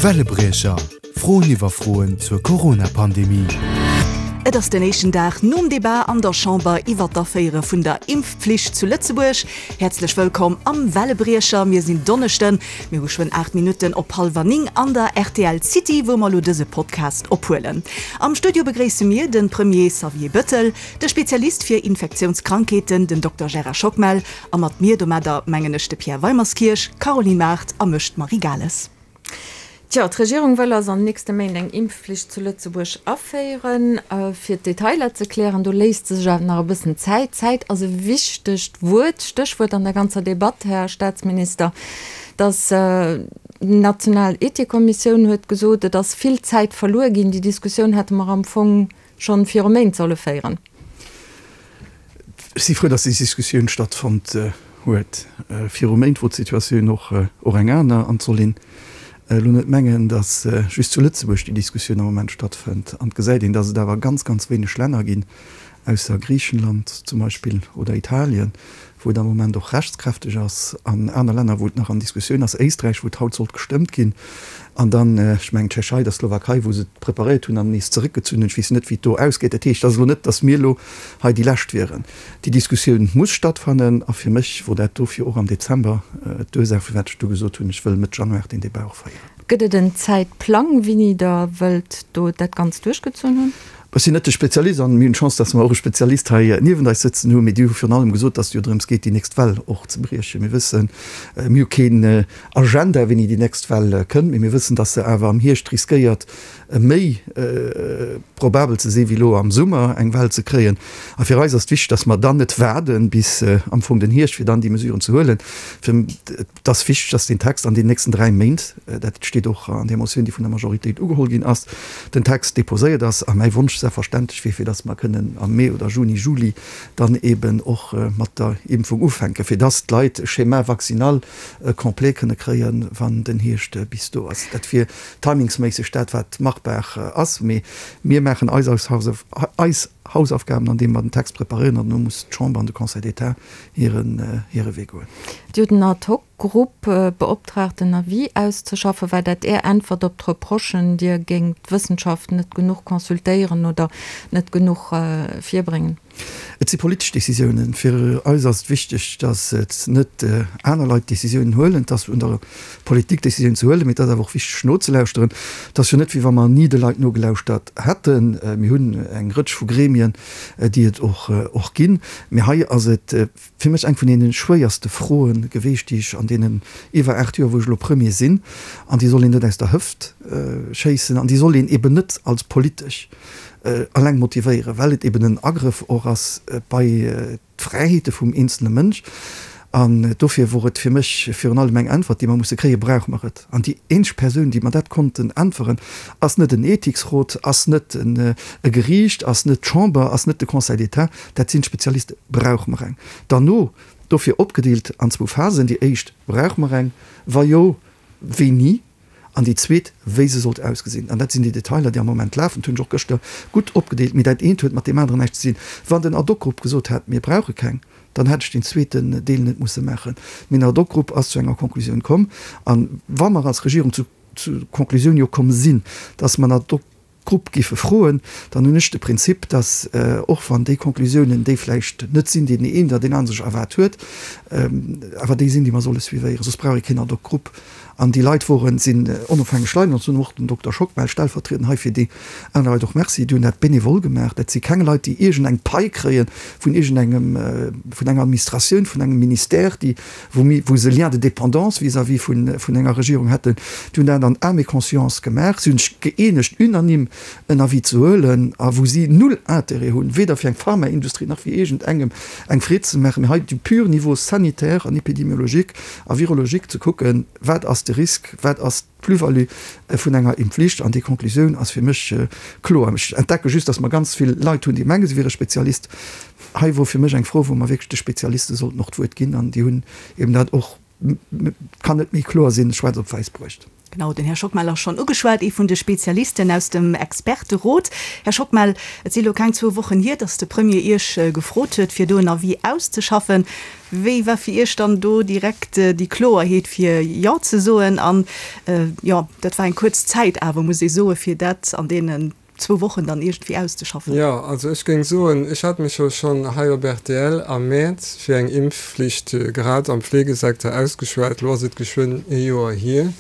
Wellebriecher, Froen iwwer Froen zur Corona-Pandemie. Et ass den éischten Dag nom Debat an der Chamber iwwer d'Aféiere vun der Impfpflicht zu Lëtzebuerg. Häerzlech wëllkomm am Wellebriecher. Mir sinn Donneschden, mir hu schwënn 8 Minutten op hallwer 9 an der rtl City, wou mer elo dëse Podcast ophuelen. Am Studio begréisse mir de Premier Xavier Bettel, de Spezialist fir Infektiounskrankheeten, den Dokter Gérard Schockmel, A mat mir domadder mengen ech de Pierre Weimerskirch, d'Caroline Mart a mech, d'Marie Gales. Tjo, d'Regierung wëll also an den nächste Méint eng Impfflicht zu Lëtzebuerg aféieren. Fir d'Detailer ze klären, do léisst se sech awer nach e bëssen Zäit. Zäit ass e wichtegt Wuert, Stéchwuert an der ganzer Debatt, Här Staatsminister. Dass d'national Ethikkommissioun huet gesot, et ass vill Zäit verluer ginn. Déi Diskussioun hätte mer am Fong schonn viru Méint solle féieren. Ech si frou, dass déi Diskussioun stattfonnt huet. Viru Méint wor d'Situatioun och och eng aner. An et soll een elo net mengen, dass just zu Lëtzebuerg déi Diskussioun am Moment stattfënnt. An et gesäit een, dass et awer ganz, ganz wéineg Länner ginn, ausser Griichenland zum Beispill oder Italien, wou et am Moment och rechtskräfteg ass, an aner Länner, wou et nach an Diskussioun ass, Éisträich, wou et haut sollt gestëmmt ginn, an dann, ech mengen, d'Tschechei, der Slowakei, wou se et preparéiert hunn an nees zeréckgezunn hunn. Ech weess net, wéi et do ausgeet. Dat heescht, et ass elo net, datt mir elo hei déi Lescht wieren. Déi Diskussioun muss stattfannen, a fir mech wor dat dofir och am Dezember d'Ursaach, firwat ech du gesot hunn, ech wëll Mëtt Januar deen Débat och féieren. Gëtt et en Zäitplang, wéini Der wëllt do dat Ganzt duerchgezunn hunn? Ech sinn net de Spezialist an mir hunn d'Chance, dass mer och e Spezialist hei niewent eis sëtzen hunn. Mee déi hu virun allem gesot, dass et jo drëms geet, déi nächst Well och ze briechen. Mir wëssen, mir hu keen Agenda, wéini déi nächst Well kënnt, mee mir wëssen, dass se awer am Hierscht riskéiert, méi probabel ze sinn, wéi elo am Summer eng Well ze kréien. A fir eis ass et wichteg, dass mer dann net waarden bis am Fong den Hierscht, fir dann déi Mesuren ze huelen. Fir Et ass wichteg, dass deen Text an den nächsten 3 Méint, dat steet och an där Motioun, déi vun der Majoritéit ugeholl ginn ass, den Text déposéiert ass. A mäi Wonsch selbstverständlech wier, fir dass mer kënnen am Mee oder Juni, Juli dann eeben och mat der Impfung ufänken, fir dass d'Leit e Schéma vaccinal complet kënne kréien, wann den Hierscht bis do ass. Dat wier timingsméisseg dat, wat machbar ass. Mee mir maachen eis Hausaufgaben, andeem mer den Text preparéieren, an elo muss d'Chamber an de Conseil d'État hiren hire Wee goen. Dir hutt en Ad-hoc-Grupp beoptraagt en Avis auszeschaffen. War dat Är Äntwert op d'Reprochen, Dir géingt d'Wëssenschaft net genuch consultéieren oder net genuch virbréngen? Et si politesch Décisiounen. Fir eis ass et wichteg, datt et net aner Leit d'Décisiounen huelen. Et ass un der Politik Décisiounen ze huelen, mee et ass awer och wichteg nozelauschteren. Et ass jo net, wéi wa mer ni de Leit nogelauschtert hätten. Mir hunn eng Rëtsch vu Gremien, déi et och ginn. Mee hei ass et fir mech eng vun deene schwéierste Froe geweecht, déi ech an deenen iwwer 8 Joer, wou ech elo Premier sinn, an déi soll een net aus der Hëft schéissen an déi soll een eben net als politesch eleng motivéieren, well et eben en Agrëff och ass bei d'Fräiheete vum eenzele Mënsch. An dofir wor et fir mech virun allem eng Äntwert, déi mer musse kréien, Brauche mer et? An déi eenzeg Persoun, déi mer dat konnten äntweren, ass net en Ethiksrot, ass net e Geriicht, ass net d'Chamber, ass net de Conseil d'État, dat sinn d'Spezialisten. Brauche mer eng? Derno, dofir opgedeelt an zwou Phasen, déi éischt, Brauche mer eng? Wa jo, wéini? An déi zweet, wéi se sollt ausgesinn. An dat sinn déi Detailer, déi am Moment lafen. Dat hunn ech och gëschter gutt opgedeelt. Mee dat eent huet mat deem aneren näischt ze dinn. Wann den Ad-hoc-Grupp gesot hätt, mir brauche keng, dann hätt ech deen zweeten Deel net musse maachen. Mee den Ad-hoc-Grupp ass zu enger Konklusioun komm. A wa mer als Regierung zu Konklusioun jo komm sinn, dass mer en Ad-hoc Grupp géife froen, dann hunn ech de Prinzip, dass, och wann déi Konklusiounen déi vläicht net sinn, déi den een oder deen anere sech erwaart huet, awer déi sinn, déi mer solle suivéieren, soss brauch ee keen Ad-hoc-Grupp. An déi Leit woren, sinn onofhängeg Leit, an ech soen och dem Dokter Schockmel stellvertriedend hei fir déi aner Leit och Merci, déi hunn dat bénévol gemaach. Dat si keng Leit, déi iergendeng Pai kréie vun iergendengem, vun enger Administratioun, vun engem Ministère, déi, wou mir, wou se Lien de dépendance vis-à-vis vun, vun enger Regierung hätten, déi hunn dat an âme et conscience gemaach. Si hunn sech gëeenegt, unanime en Avis ze huelen, a wou si null Intérêt hunn, weder fir eng Pharmaindustrie nach fir iergendengem eng Freed ze maachen, mee hei du pur niveau sanitaire an épidémiologique a virologique ze kucken, wat ass de Risque, wat ass d'Plus-value vun enger Impfflicht. An déi Konklusioun ass fir mech kloer. Ech entdecke just, dass mer ganz vill Leit hunn, déi mengen, se wiere Spezialist. Hei wor fir mech eng Fro, wou mer wierklech de Spezialiste sollten och d'Wuert ginn, an déi hunn eben dat och. Kann net méi kloer sinn, schwaarz op wäiss bruecht. Genau, den Här Schockmel ass schonn ugeschwat, ee vun de Spezialisten aus dem Experterot. Här Schockmel, et si lo keng zwou Wochen hier, datt de Premier Iech gefrot huet, fir do en Avis auszeschaffen. Wéi war fir Iech dann do direkt déi Kloerheet, fir Jo ze soen? An, jo, dat war eng kuerz Zäit awer, muss ee soen, fir dat an deenen zwou Wochen dann iergendwéi auszeschaffen. Jo, also ech géing soen, ech hat mech jo schonn hei op rtl am Mäerz fir eng Impfflicht grad am Fleegesecteur ausgeschwat. Elo ass et geschwënn ee Joer hier.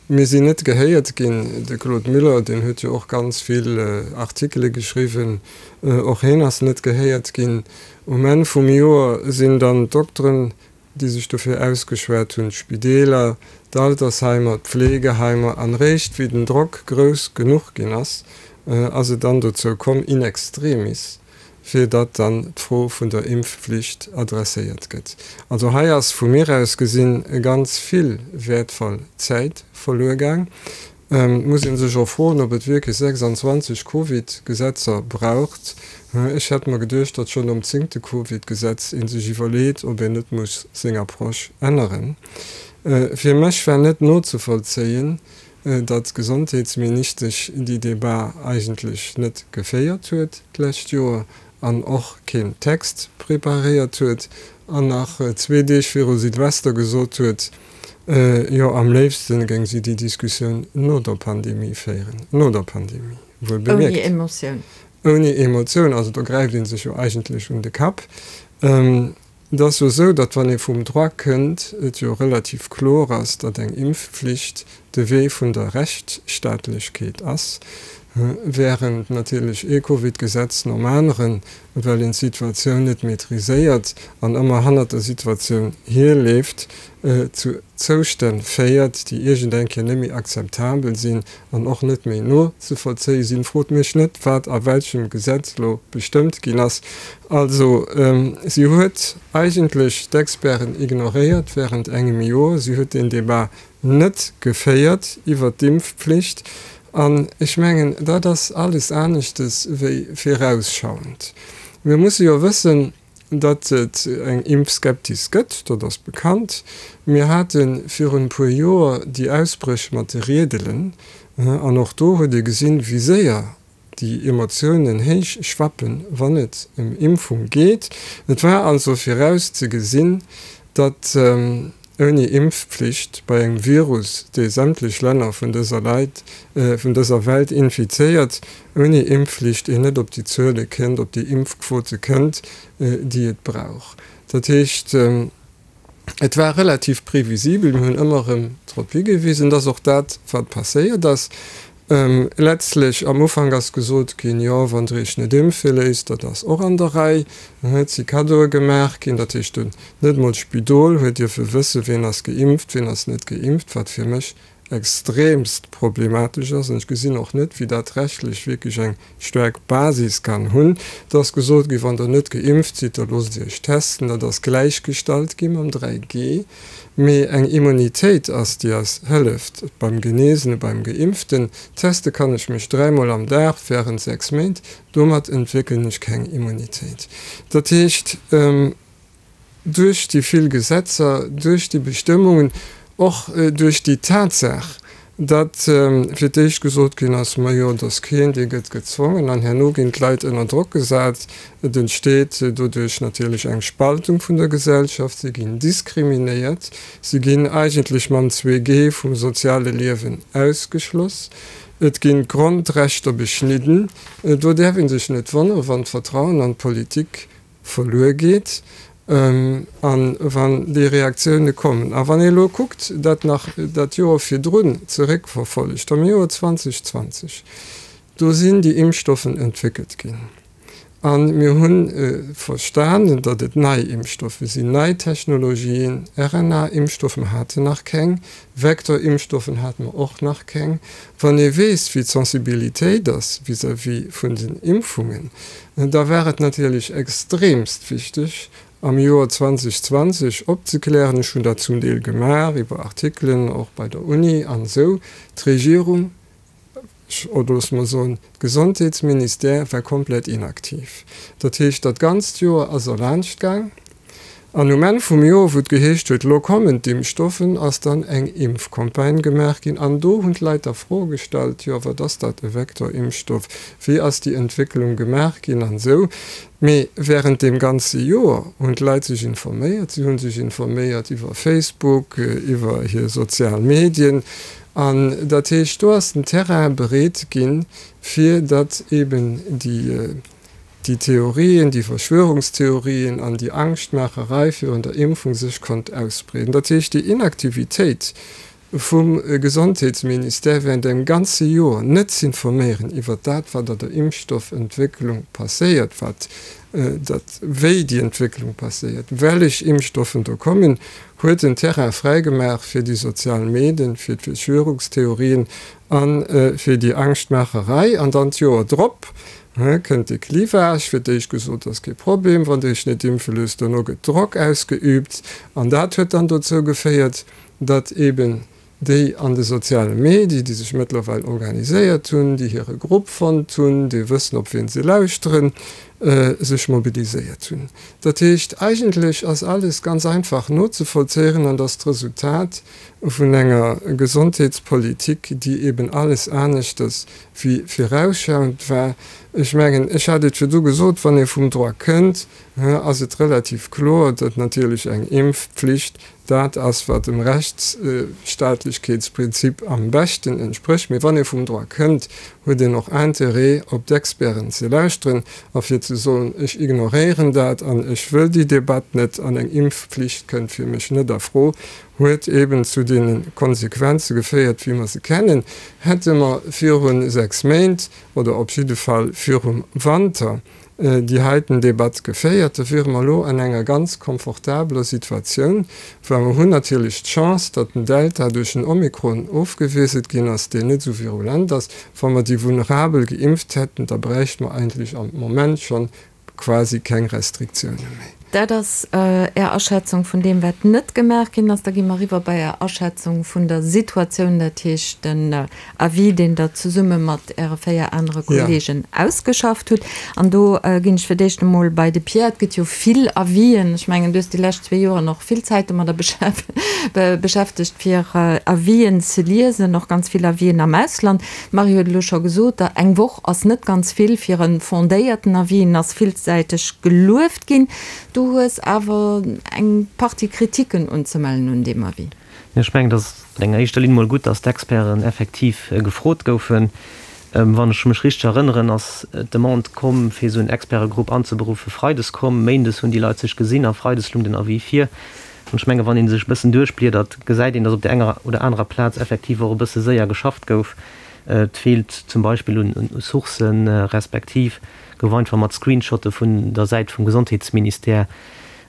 Mir sinn net gehéiert ginn. De Claude Muller, deen huet jo och ganz vill Artikele geschriwwen, och hien ass net gehéiert ginn. Um Enn vum Joer sinn dann d'Dokteren déi sech dofir ausgeschwat hunn, d'Spideeler, d'Altersheimer, d'Pflegeheimer, an réischt wéi den Drock grouss genuch ginn ass, ass et dann dozou komm, in extremis, fir datt dann d'Fro vun der Impfflicht adresséiert gëtt. Also hei ass vu mir aus gesinn ganz vill wäertvoll Zäit verluer gaang. Et muss ee sech och froen, ob et wierklech 26 Covid-Gesetzer braucht. Ech hätt mer geduecht, datt schonn nom zéngte Covid-Gesetz ee sech iwwerleet, ob een net muss seng Approche änneren. Fir mech war net nozevollzéien, datt d'Gesondheetsministesch déi Debat eigentlech net geféiert huet d'lescht Joer an och keen Text preparéiert huet an nach zwee Deeg viru Silvester gesot huet, Jo, am léifsten géing si déi Diskussioun no der Pandemie féieren. No der Pandemie, wuel bemierkt. Ouni Emotioun. Ouni Emotioun, also do gräift ee sech jo eigentlech un de Kapp. Et ass jo esou, datt wann ee vum Droit kënnt, et jo relativ kloer ass, datt eng Impfflicht de Wee vun der Rechtsstaatlechkeet ass, wärend natierlech ee Covid-Gesetz nom aneren, well een d'Situatioun net maîtriséiert an ëmmer hannert der Situatioun hierleeft, zu Zoustänn féiert, déi iergend eng Kéier net méi akzeptabel sinn an och net méi nozevollzéie sinn. Frot mech net, wat a welchem Gesetz elo bestëmmt ginn ass. Also, si huet eigentlech d'Experten ignoréiert während engem Joer. Si huet deen Débat net geféiert iwwert d'Impfpflicht. An ech mengen, dat ass alles aneschtes wéi virausschauend. Mir musse jo wëssen, datt et eng Impfskeptis gëtt, dat ass bekannt. Mir hate virun e puer Joer déi Ausbréch mat de Riedelen, an och do huet ee gesinn, wéi séier déi Emotiounen héich schwappen, wann et ëm Impfung geet. Et war also viraus ze gesinn, datt ouni Impfpflicht bei engem Virus, dee sämtlech Länner vun dëser Leit, vun dëser Welt infizéiert, ouni Impfflicht een net op déi Zuele kënnt, op déi Impfquote kënnt, déi et brauch. Dat heescht, Et war relativ previsibel, mir hunn ëmmer erëm drop higewisen, dass och dat, wat passéiert ass, letztlech am Ufank ass gesot ginn, jo, wann Der Iech net impfe léisst, dat ass och an der Rei. Dann huet si Kaddoe gemaach ginn, dat heescht, net emol d'Spidol huet dierfe wëssen, wien ass geimpft, wien ass net geimpft, wat fir mech extremst problematesch ass, an ech gesinn och net, wéi dat rechtlech wierklech eng staark Basis kann hunn. Et ass gesot ginn, wann Der net geimpft sidd, da loosst Iech testen. Dat ass gläichgestallt gi mam 3G. Mee eng Immunitéit ass, déi eis hëlleft beim Genesene, beim Geimpften. Teste kann ech mech dräimol am Dag während 6 Méint, domat entwéckelen ech keng Immunitéit. Dat heescht, duerch déi vill Gesetzer, duerch déi Bestëmmungen, och duerch déi Tatsaach, datt fir d'éischt gesot ginn ass, Majo, et ass keen, dee gëtt gezwongen, an herno ginn d'Leit ënner Drock gesat. Et entsteet doduerch natierlech eng Spaltung vun der Gesellschaft, si ginn diskriminéiert, si ginn eigentlech mam 2G vum soziale Liewen ausgeschloss, et ginn d'Grondrechter beschnidden. Do däerf ee sech net wonneren, wann d'Vertrauen an d'Politik verluer geet a wann déi Reaktioune kommen. A wann ee elo kuckt, dat nach dat Joer virdrun zeréckverfollegt, am Joer 2020, do sinn déi Impfstoffen entwéckelt ginn a mir hu verstanen, datt et nei Impfstoffe sinn, nei Technologien, RNA-Impfstoffen haten nach keng, Vektor-Impfstoffen hate mer och nach keng. Wann ee weess, wéi d'Sensibilitéit ass vis-à-vis vun den Impfungen, da war et natierlech extremst wichteg, am Joer 2020 opzeklären, ech hunn dat zum Deel gemaach iwwer Artikelen, och bei der Uni an esou, d'Regierung, oder loosse mer soen, d'Gesondheetsministère war komplett inaktiv. Dat heescht, dat ganzt Joer ass erlaanscht gaang. An um Enn vum Joer, wou et geheescht huet, lo kommen d'Impfstoffen, ass dann eng Impfcampagne gemaach ginn. An do hunn d'Leit da Froe gestallt, jo wat ass dat, e Vektorimpfstoff, wéi ass déi Entwécklung gemaach ginn an esou. Mee wärend deem ganze Joer hunn d'Leit sech informéiert. Si hu sech informéiert iwwer Facebook, iwwer hir sozial Medien. An dat heescht, do ass den Terrain bereet ginn, fir datt eeben déi, déi Theorien, déi Verschwörungstheorien an déi Angschtmaacherei virun der Impfung sech konnt ausbreeden. Dat heescht, déi Inaktivitéit vum Gesondheetsministère während engem ganze Joer net z'informéieren iwwert dat, wat an der Impfstoffentwécklung passéiert, wat dat, wéi déi Entwécklung passéiert, wellech Impfstoffen do kommen, huet den Terrain fräigemaach fir déi sozial Medien, fir d'Verschwörungstheorien a fir déi Angschtmaacherei. An dann d'Joer drop kënnt de Clivage, fir d'éischt gesot, ass kee Problem, wann Der Iech net impfe loosst, dono gëtt Drock ausgeüübt an dat huet dann dozou geféiert, datt eben déi an de soziale Medie, déi sech mëttlerweil organiséiert hunn, déi hire Grupp fonnt hunn, déi wëssen, op wien se lauschteren, sech mobiliséiert hunn. Dat heescht, eigentlech ass alles ganz einfach nozevollzéieren an ass d'Resultat vun enger Gesondheetspolitik, déi eben alles aneschters wéi virausschauend war. Ech mengen, ech hat et virdu gesot, wann ee vum Droit kënnt, ass et relativ kloer, datt natierlech eng Impfpflicht Dat ass, wat dem Rechtsstaatlechkeetsprinzip am beschten entsprécht. Mee wann ee vum Droit kënnt, huet een och Interêt, op d'Experten ze lauschteren a fir ze soen, Ech ignoréieren dat an ech wëll déi Debatt net an eng Impfpflicht kënnt fir mech net a Fro, huet eeben zu deene Konsequenze geféiert, wéi mer se kennen. Hätte mer viru 6 Méint oder op jidde Fall virum Wanter déi heiten Debatt geféiert, da wiere mer elo an enger ganz komfortabeler Situatioun, well mer hunn natierlech d'Chance, datt den Delta duerch den Omikron ofgewiesselt ginn ass, deen net esou virulent ass. Wa mer déi Vulnerabel geimpft hätten, da bräichte mer eigentlech am Moment schonn quasi keng Restriktioune méi. Dat ass Är Aschätzung vun deem, wat net gemaach ginn ass. Da gi mer eriwwer bei Är Aschätzung vun der Situatioun, dat heescht den Avis, deen Der zesumme mat Äre 4 anere Kolleegen ausgeschafft hutt. An do ginn ech fir d'éischt emol bei de Pierre. Et gëtt jo vill Avisen. Ech mengen, du hues déi lescht zwee Joren och vill Zäit domadder beschäftegt, fir Avisen ze liesen, och ganz vill Avisen am Ausland. D'Marie huet elo scho gesot, eng Woch ass net ganz vill fir e fondéierten Avis. En ass villsäiteg gelueft ginn. Du hues awer eng Partie Kritiken unzemellen un deem Avis. Ech mengen, et ass an enger éischter Linn mol gutt, datt d'Experten effektiv gefrot goufen. Wann ech mech richteg erënneren, ass d'Demande komm, fir esou en Expertegrupp anzeberuffen, freides komm. Méindes hunn déi Leit sech gesinn a freides lung den Avis vir. An ech menge wann ee sech e bëssen duerchbliedert, gesäit een, datt op där enger oder anerer Plaz effektiv och e bësse séier geschafft gouf. Et feelt zum Beispill un Sourcen, respektiv gouf einfach mat Screenshotte vun der Säit vum Gesondheetsministère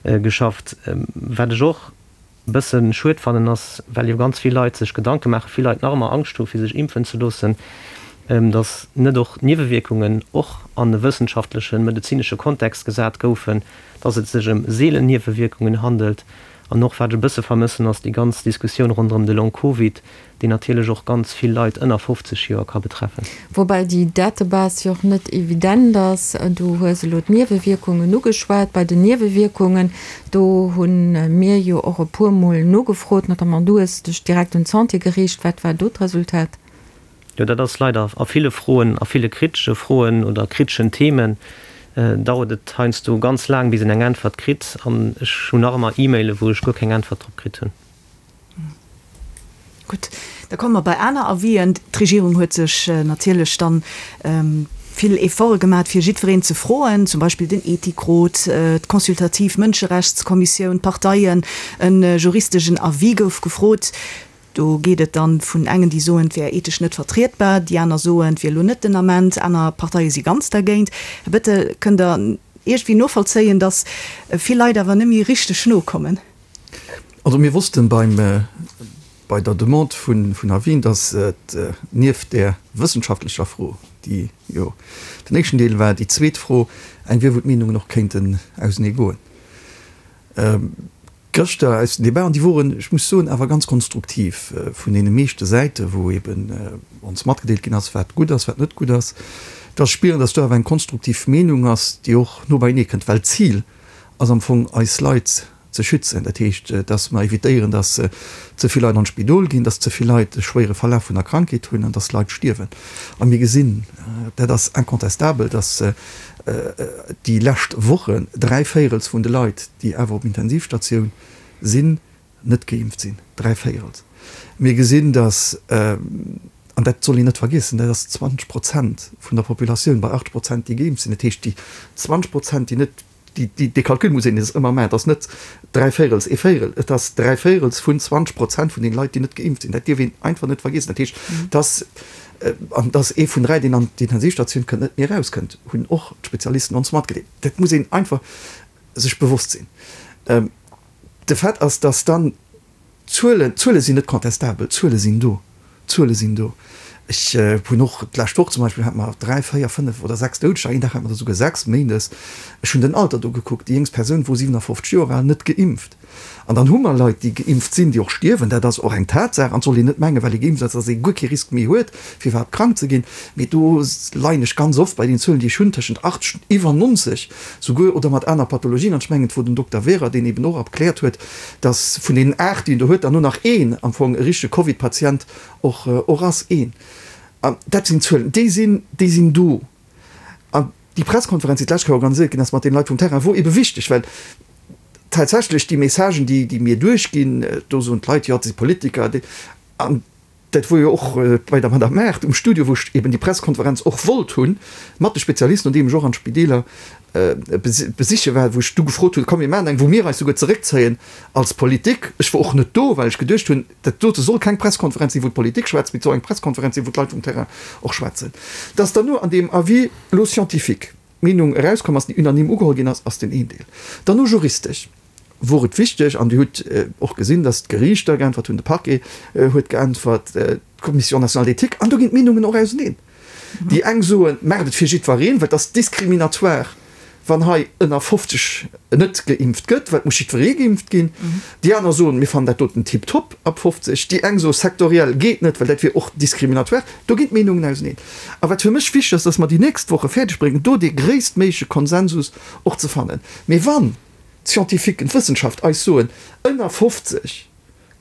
geschafft. Wat ech och bëssen schued fannen ass, well jo ganz vill Leit sech Gedanke maachen, vill Leit nach ëmmer Angscht hu fir sech impfen ze loossen, datt net och d'Niewewierkungen och an e wëssenschaftlechen, medezinesche Kontext gesat goufen, datt et sech ëm seelen Niewewierkungen handelt. An och wat ech e bësse vermëssen ass déi ganz Diskussioun ronderëm de Long Covid, deen natierlech och ganz vill Leit ënner 50 Joer ka betreffen. Woubäi déi Database jo och net evident ass. Du hues elo d'Niewewierkungen ugeschwat. Bei den Niewewierkungen, do hu mir jo och e puermol nogefrot, notamment du hues dech direkt un d'Santé geriicht. Wat war do d'Resultat? Jo, dat ass leider a ville Froen, a ville kritesche Froen oder kriteschen Themen, dauert et heiansdo ganz laang, bis een eng Äntwert kritt. An ech hunn nach ëmmer E-Maile wou ech guer keng Äntwert drop kritt hunn. Gutt, da komme mer bei aner Avisen. D'Regierung huet sech natierlech dann vill Efforte gemat, fir jiddwereen ze froen, zum Beispill den Ethikrot, d'consultativ Mënscherechtskommissioun, d'Parteien. E juristegen Avis gouf gefrot. Do geet et dann vun engen, déi soen, et wär ethesch net vertrietbar, déi aner soen, et wier elo net den Ament, aner Parteie si ganz dergéint. Här Bettel, kënnt Der iergendwéi novollzéien, datt vill Leit awer net méi richteg nokommen? Also mir wossten beim, bei der Demande vun vun Avis'en, dass et nieft där wëssenschaftlecher Fro, déi jo den éischten Deel war, déi zweet Fro eng wier, wou d'Meenungen och kéinten ausenee goen. Gëschter aus den Debaten, déi woren, ech muss soen, awer ganz konstruktiv vun deene meeschte Säiten, wou eben ons matgedeelt ginn ass, wat gutt ass, wat net gutt ass, dass spieren, dass do awer eng konstruktiv Meenung ass, déi och no beienee kënnt, well d'Zil ass am Fong eis Leit. ze schützen. Dat heescht, dass mer evitéieren, dass ze vill Leit an d'Spidol ginn, dass ze vill Leit e schwéiere Verlaf vun der Krankheet hunn an dass Leit stierwen. A mir gesinn, dat ass incontestabel, dass déi lescht Wochen dräivéierels vun de Leit, déi awer op Intensivstatioun sinn, net geimpft sinn. Dräivéierels. Mir gesinn, dass, an dat soll een net vergiessen, dat ass 20 Prozent vun der Populatioun bei 80 Prozent, déi geimpft sinn. Dat heescht, déi 20 Prozent, déi net, déi, dee Calcul muss een ëmmer maachen, et ass net dräivéierels, ee Véierel, et ass dräivéierels vun 20 Prozent vun den Leit, déi net geimpft sinn. Dat dierf een einfach net vergiessen. Dat heescht, dass, an dass ee vun dräi, deen an d'Intensivstatioun kënnt, net méi erauskënnt, hunn och d'Spezialisten ons matgedeelt. Dat muss een einfach sech bewosst sinn. De Fait ass, dass dann d'Zuelen, d'Zuele sinn net contestabel, d'Zuele sinn do, d'Zuele sinn do. Ech hunn och d'lescht Woch zum Beispill hate mer dräi, véier, fënnef oder sechs Doudeger, een Dag hate mer der souguer sechs, méindes. Ech hunn den Alter do gekuckt, déi jéngst Persoun wor 57 Joer al, net geimpft. An dann hu mer Leit, déi geimpft sinn, déi och stierwen, dat ass och eng Tatsaach. An et soll een net mengen, well ee geimpft ass, dass ee guer kee Risk méi huet, fir iwwerhaapt krank ze ginn. Mee do leien ech ganz oft bei den Zuelen, déi ech hunn, tëschent 80 an iwwer 90 souguer, oder mat aner Pathologien. An ech mengen, et wor den Dokter Wehrer, deen eben och erkläert huet, dass vun deenen 8, déi en do huet, dann nur nach een am Fong e richtege Covid-Patient och och ass. Een. An dat sinn Zuelen, déi sinn, déi sinn do. An déi Presskonferenz, déi d'lescht Kéier organiséiert ginn ass mat deene Leit vum Terrain, wor ebe wichteg, well tatsächlech déi Messagen, déi, déi mir duerchginn, do soen d'Leit, jo, dat si Politiker, déi, an Dat wor jo och bei der Madame Maart um Studio, wou ech eben déi Presskonferenz och wollt hunn, mat de Spezialisten, nodeem ech och an d'Spideeler besiche war, wou ech du gefrot hunn, komm mir maachen eng, wou mir eis souguer zeréckzéien als Politik. Ech wor och net do, well ech geduecht hunn, dat dote soll keng Presskonferenz sinn, wou d'Politik schwätzt, mee et soll eng Presskonferenz sinn, wou d'Leit vum Terrain och schwätzen. Dass dann no an deem Avis elo scientifique d'Meenung erauskomm ass, déi unanime ugeholl ginn ass, ass den een Deel. Dann no juristesch. wor et wichteg, an Dir hutt och gesinn, datt d'Geriichter geäntwert hunn, de Parquet huet geäntwert, d'Commission nationale d'éthique, an do ginn d'Meenungen och auseneen. Déi eng soen, maacht et fir jiddwereen, well et ass diskriminatoire, wann hei ënner 50 net geimpft gëtt, well et muss jiddweree geimpft ginn. Déi aner soen, mir fannen dat doten tiptop ab 50. Déi eng soe sektoriell geet net, well dat wier och diskriminatoire. Do ginn d'Meenungen auseneen. A wat fir mech wichteg ass, datt mer déi nächst Woche fäerdeg bréngen, do dee gréisstméigleche Konsensus och ze fannen. Mee wann d'Scientifiquen, d'Wëssenschaft eis soen, ënner 50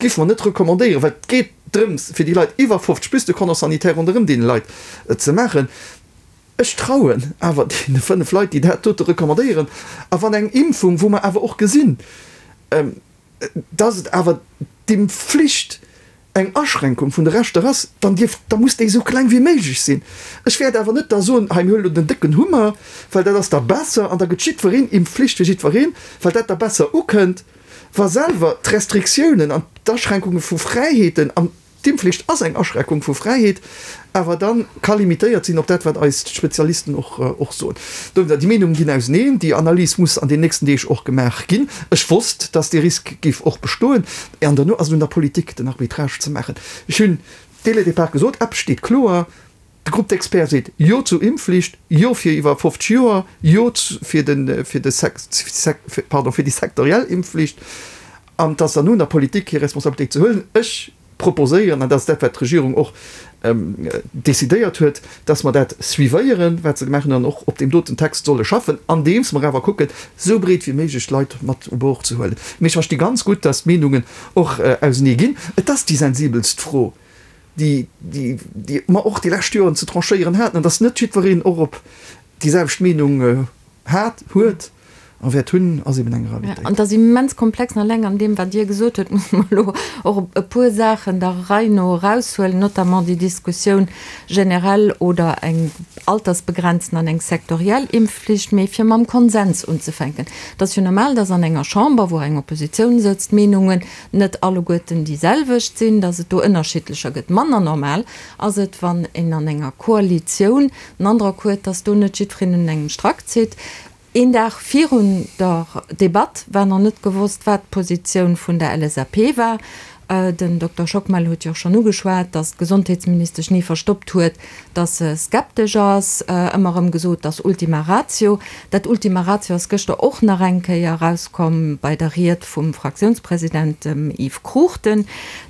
géife mer net recommandéieren, well et geet drëms fir déi Leit iwwer 50 plus de Cordon sanitaire ronderëm deene Leit ze maachen. Ech trauen awer deene 5 Leit, déi dat dote recommandéieren. A wann eng Impfung, wou mer awer och gesinn, dass et awer d'Impfflicht eng Aschränkung vun de Rechter ass, dann dierf, da muss déi esou kleng wéi méiglech sinn. Ech wäert awer net da soen, hei mir huelen elo den décken Hummer, well dat ass da besser an da gëtt jiddwereen, Impfflicht fir jiddwereen, well dat da besser ukënnt, wa selwer d'Restriktiounen an d'Aschränkunge vu Fräiheeten, an d'Impfflicht ass eng Aschränkung vu Fräiheet, awer da ka limitéiert sinn op dat, wat eis d'Spezialisten och soen. Dowéinster, déi Meenungen ginn auseneen. Déi Analys muss an den nächsten Deeg och gemaach ginn. Ech wosst, dass dee Risk géif och bestoen. An duerno ass et un der Politik, den Arbitrage ze maachen. Ech hunn dès le départ gesot, eppes steet kloer, De Groupe d'experts seet Jo zur Impfflicht, Jo fir iwwer 50 Joer, Jo fir de, fir de pardon, fir déi sektoriell Impfflicht. An et ass dann un der Politik, hir Responsabilitéit ze huelen. Ech proposéieren, an dat ass dat, wat d'Regierung och decidéiert huet, dass mer dat suivéieren, wat se gemaach hunn, an och op deem doten Text solle schaffen, andeems mer awer kucken, esou breet wéi méiglech d'Leit mat u Bord ze huelen. Mee ech versti ganz gutt, dass d'Meenungen och ausenee ginn. Et ass déi sensibelst Fro, déi, déi mer och déi lescht Joren ze tranchéieren haten, an dass net jiddwereen och op déi selwecht Meenung hat, huet a wäert hunn, ass eben eng Realitéit. An et ass immens komplex. An alleng an deem, wat Dir gesot hutt, musse mer elo och e puer Saachen der Rei no eraushuelen, notamment déi Diskussioun generell oder eng altersbegrenzen an eng sektoriell Impfflicht. Mee fir mam Konsens unzefänken, Et ass jo normal, dass an enger Chamber, wou eng Oppositioun sëtzt, d'Meenungen net alleguerten déi selwecht sinn, dass et do ënnerschiddlecher gëtt. Manner normal ass et, wann een an enger Koalitioun den Androck huet, dass do net jiddwereen un engem Strack zitt. Een Dag virun der Debatt war nach net gewosst, wat d'Positioun vun der LSAP war. Den Dokter Schockmel huet jo och schonn ugeschwat, datt d'Gesondheetsministesch ni verstoppt huet, datt se skeptesch ass, ëmmer erëm gesot, datt Ultima Ratio. Dat Ultima Ratio ass gëschter och nach eng Kéier erauskomm bei der Ried vum Fraktiounspresident, dem Yves Cruchten.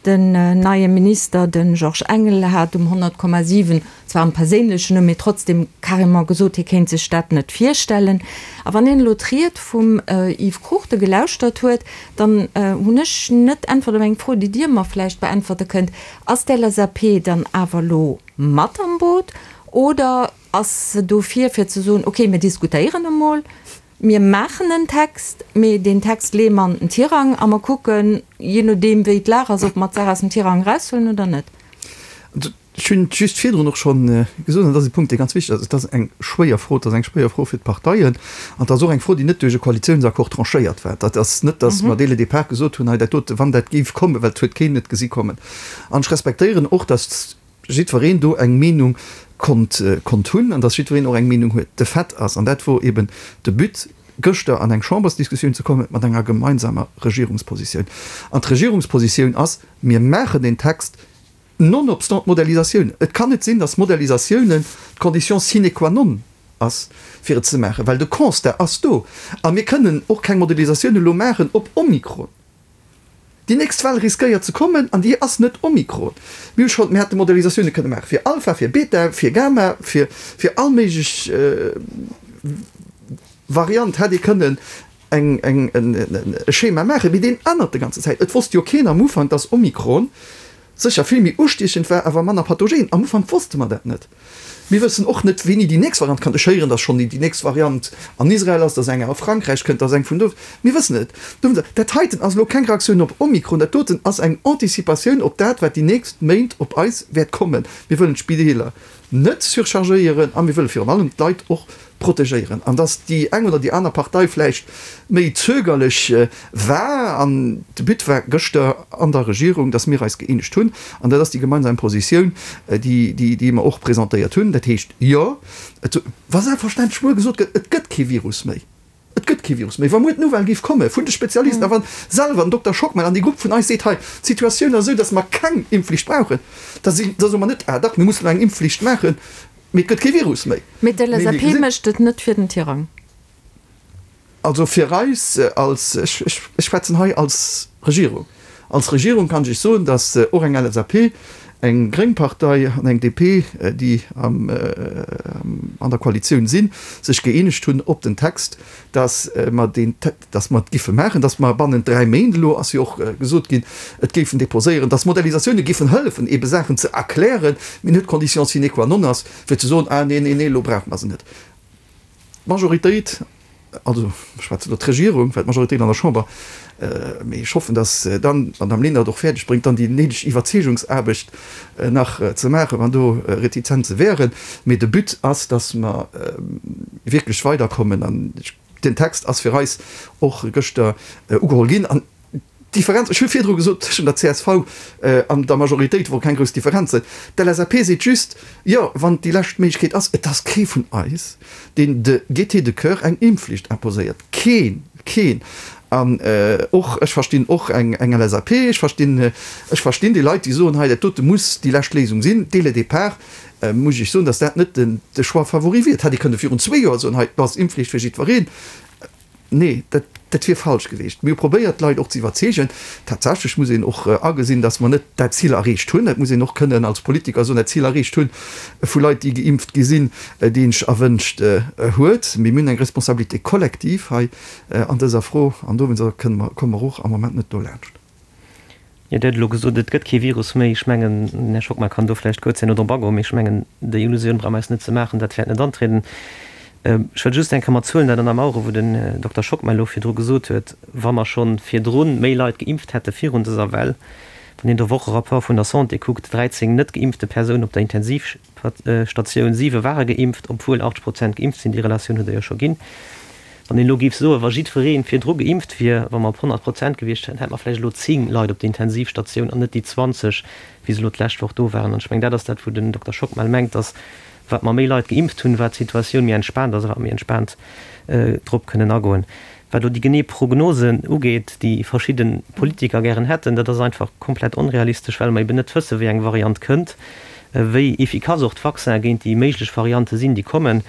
Den neie Minister, de Georges Engel, hat um 100,7 zwar am perséinlechen Numm, mee trotzdem carrément gesot, hie kéint sech dat net virstellen. A wann een elo d'Ried vum Yves Cruchten gelauschtert huet, dann hunn ech net d'Äntwert op eng Fro, déi Dir mer vläicht beäntwerte kënnt, Ass d'LSAP dann awer elo mat am Boot oder ass se dofir, fir ze soen, okay, mir diskutéieren emol, mir maachen en Text, mee deen Text leeë mer an den Tirang a mer kucken, jee nodeem wéi d'Lag ass, ob mer d'Saach aus dem Tirang eraushuelen oder net? Ech hunn et just virdrun och scho gesot, an dat ass e Punkt, dee ganz wichteg ass, Et ass eng schwéier Fro, et ass eng schwéier Fro fir d'Parteien an et ass och eng Fro, déi net duerch e Koalitiounsaccord tranchéiert war. Dat ass net, datt mer dès le départ gesot hunn, hei dat dote, wann dat géif kommen, well et huet keen et gesi kommen. An ech respektéieren och, datt jiddwereen do eng Meenung konnt konnt hunn an datt jiddwereen och eng Meenung huet. De Fait ass, an dat wor eben de But, gëschter an eng Chambersdiskussioun ze kommen mat enger gemeinsamer Regierungspositioun. An d'Regierungspositioun ass, Mir maachen deen Text, Nonobstant d'Modellisatioun. Et kann net sinn, datt Modellisatiounen d'Condition sine qua non ass, fir et ze maachen, well de Constat ass do. A mir kënnen och keng Modellisatioun elo maachen op Omikron. Déi nächst Well riskéiert ze kommen an déi ass net Omikron. Mir hu schonn, mir hätte Modellisatioune kënne maache fir Alpha, fir Beta, fir Gamma, fir, fir all méiglech Variant hätt ee kënnen eng, eng, e Schema maachen, mee deen ännert de ganze Zäit. Et wosst jo keen am Ufank, dass Omikron sécher vill méi ustiechend war, awer manner pathogen. Am Ufank wosste mer dat net. Mir wëssen och net, wéini déi nächst Variant kënnt. Ech héieren, dass schonn déi nächst Variant an Israel ass, dass eng a Frankräich kënnt, dass eng vun do. Mir wëssen et net. Dat heiten ass elo keng Reaktioun op Omikron, dat doten ass eng Anticipatioun op dat, wat déi nächst Méint op eis wäert kommen. Mir wëllen d'Spideeler net surchargéieren a mir wëlle virun allem d'Leit och protegéieren. An dass déi eng oder déi aner Partei vläicht méi zögerlech war, an de But war gëschter an der Regierung, dass mir eis gëeenegt hunn, an dat ass déi gemeinsam Positioun, déi, déi mer och presentéiert hunn. Dat heescht, jo, et, wa selbstverständlech muer gesot gëtt, et gëtt kee Virus méi, et gëtt kee Virus méi, wa muer d'Nouvelle géif komme vun de Spezialisten a wa selwer den Dokter Schockmel an dee Grupp vun eis seet, hei, d'Situatioun ass esou, dass mer keng Impfflicht brauchen, da si, da soe mer net, ah dach, mir mussen elo eng Impfflicht maachen, Mee et gëtt kee Virus méi. Mee d'LSAP mécht et net fir den Tirang. Also fir eis als, ech schwätzen hei als Regierung, als Regierung kann ech Iech soen, datt och eng LSAP, eng gréng Partei an eng DP, déi an der Koalitioun sinn, sech gëeenegt hunn op den Text, datt mer deen, datt mer et giffe maachen, datt mer bannent 3 Méint, elo ass jo och gesot ginn, et géifen déposéieren, datt Modellisatioune giffen hëllefen, eebe Saachen ze erklären, mee net d'Condition sine qua non ass, fir ze soen, ah nee, nee, nee, elo brauche mer se net. D'Majoritéit, also ech schwätzen elo d'Regierung, well d'Majoritéit an der Chamber, mee ech hoffen, datt dann d'Madame Lenert et och fäerdeg bréngt, dann déi néideg Iwwerzeegungsaarbecht nach ze maachen, wann do Retizenze wären. Mee de But ass, datt mer wierklech weiderkommen an ech, Den Text ass fir eis och gëschter ugeholl ginn. An d'Differenz, ech hu virdru gesot, tëschent der csv an der Majoritéit wor keng grouss Differenzen. D'LSAP seet just, jo, wann et déi lescht Méiglechkeet ass, et ass kee vun eis, deen de gaieté de cœur eng Impfflicht imposéiert. Keen! Keen! An och, ech verstinn och eng LSAP, ech verstinn, ech verstinn déi Leit, déi soen, hei dat dote muss déi lescht Léisung sinn, dès le départ. Muss ech soen, datt dat net de Choix favori wier. Et hätt ee kënne virun zwee Joer soen, hei, do ass Impfflicht fir jiddwereen. Nee, dat, dat wier falsch gewiescht. Mir hu probéiert, d'Leit och ze iwwerzeegen. Tatsächlech muss een och agesinn, datt mer net dat Zil erreecht hunn. Dat muss een och kënnen als Politiker soen, dat Zil erreecht hunn vu Leit, déi geimpft gi sinn, déi een sech erwënscht huet. Mee mir hunn eng Responsabilité collective hei an dëser Fro an dowéinster kënne mer, komme mer och am Moment net dolaanscht. Jo, Dir hutt elo gesot, et gëtt kee Virus méi. Ech mengen, den Här Schockmel kann do vläicht kuerz herno drop agoen, mee ech mengen, déi Illusioun brauche mer eis net ze maachen, dat wäert net antrieden. Ech wëll just eng Kéier mat Zuelen dat ënnermaueren, wou den Dokter Schockmel elo virdru gesot huet, wa mer scho virdru méi Leit geimpft hätte virun dëser Well, wann een de Wocherapport vun der Santé kuckt, 13 net geimpfte Persounen op der Intensivstatioun, siwe ware geimpft, obwuel 80 Prozent geimpft sinn, déi Relatioun hutt Der jo scho ginn. Wann een elo géif soen, wa jiddweree virdru geimpft wier, wa mer op 100 Prozent gewiescht wären, hätte mer vläicht elo 10 Leit op der Intensivstatioun an net déi 20, wéi se elo d'lescht Woch do waren. An ech mengen, dat ass dat, wou den Dokter Schockmel mengt, dass wat mer méi Leit geimpft hunn, wat d'Situatioun méi entspaant ass a wat mer méi entspaant drop kënnen agoen. Wat elo déi genee Prognosen ugeet, déi verschidde Politiker gären hätten, dat ass einfach komplett onrealistesch, well mer eben net wëssen, wéi eng Variant kënnt, wéi efficace och d'Vaccinen géint déi méiglech Variante sinn, déi kommen,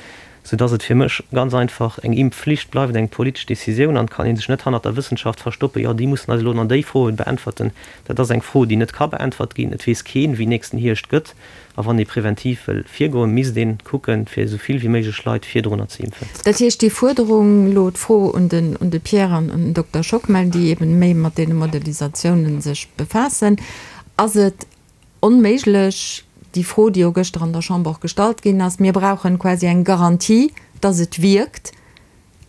soudass et fir mech ganz einfach eng Impfflicht bleift eng politesch Décisioun an et kann ee sech net hannert der Wëssenschaft verstoppen, jo déi mussen eis elo nach déi Froen beäntwerten. Dat ass eng Fro, déi net ka beäntwert ginn. Et weess keen, wéi nächsten Hierscht gëtt. A wann ee preventiv wëll virgoen, misst een kucken, fir esou vill wéi méiglech Leit virdrunner ze impfen. Dat heescht, déi Fuerderung, elo d'Fro un den un de Pierre an un den Dokter Schockmel, déi eben méi mat deene Modelisatiounen sech befaassen, ass et onméiglech, déi Fro, déi jo gëschter an der Chamber och gestallt ginn ass, mir brauchen quasi eng Garantie, dass et wierkt,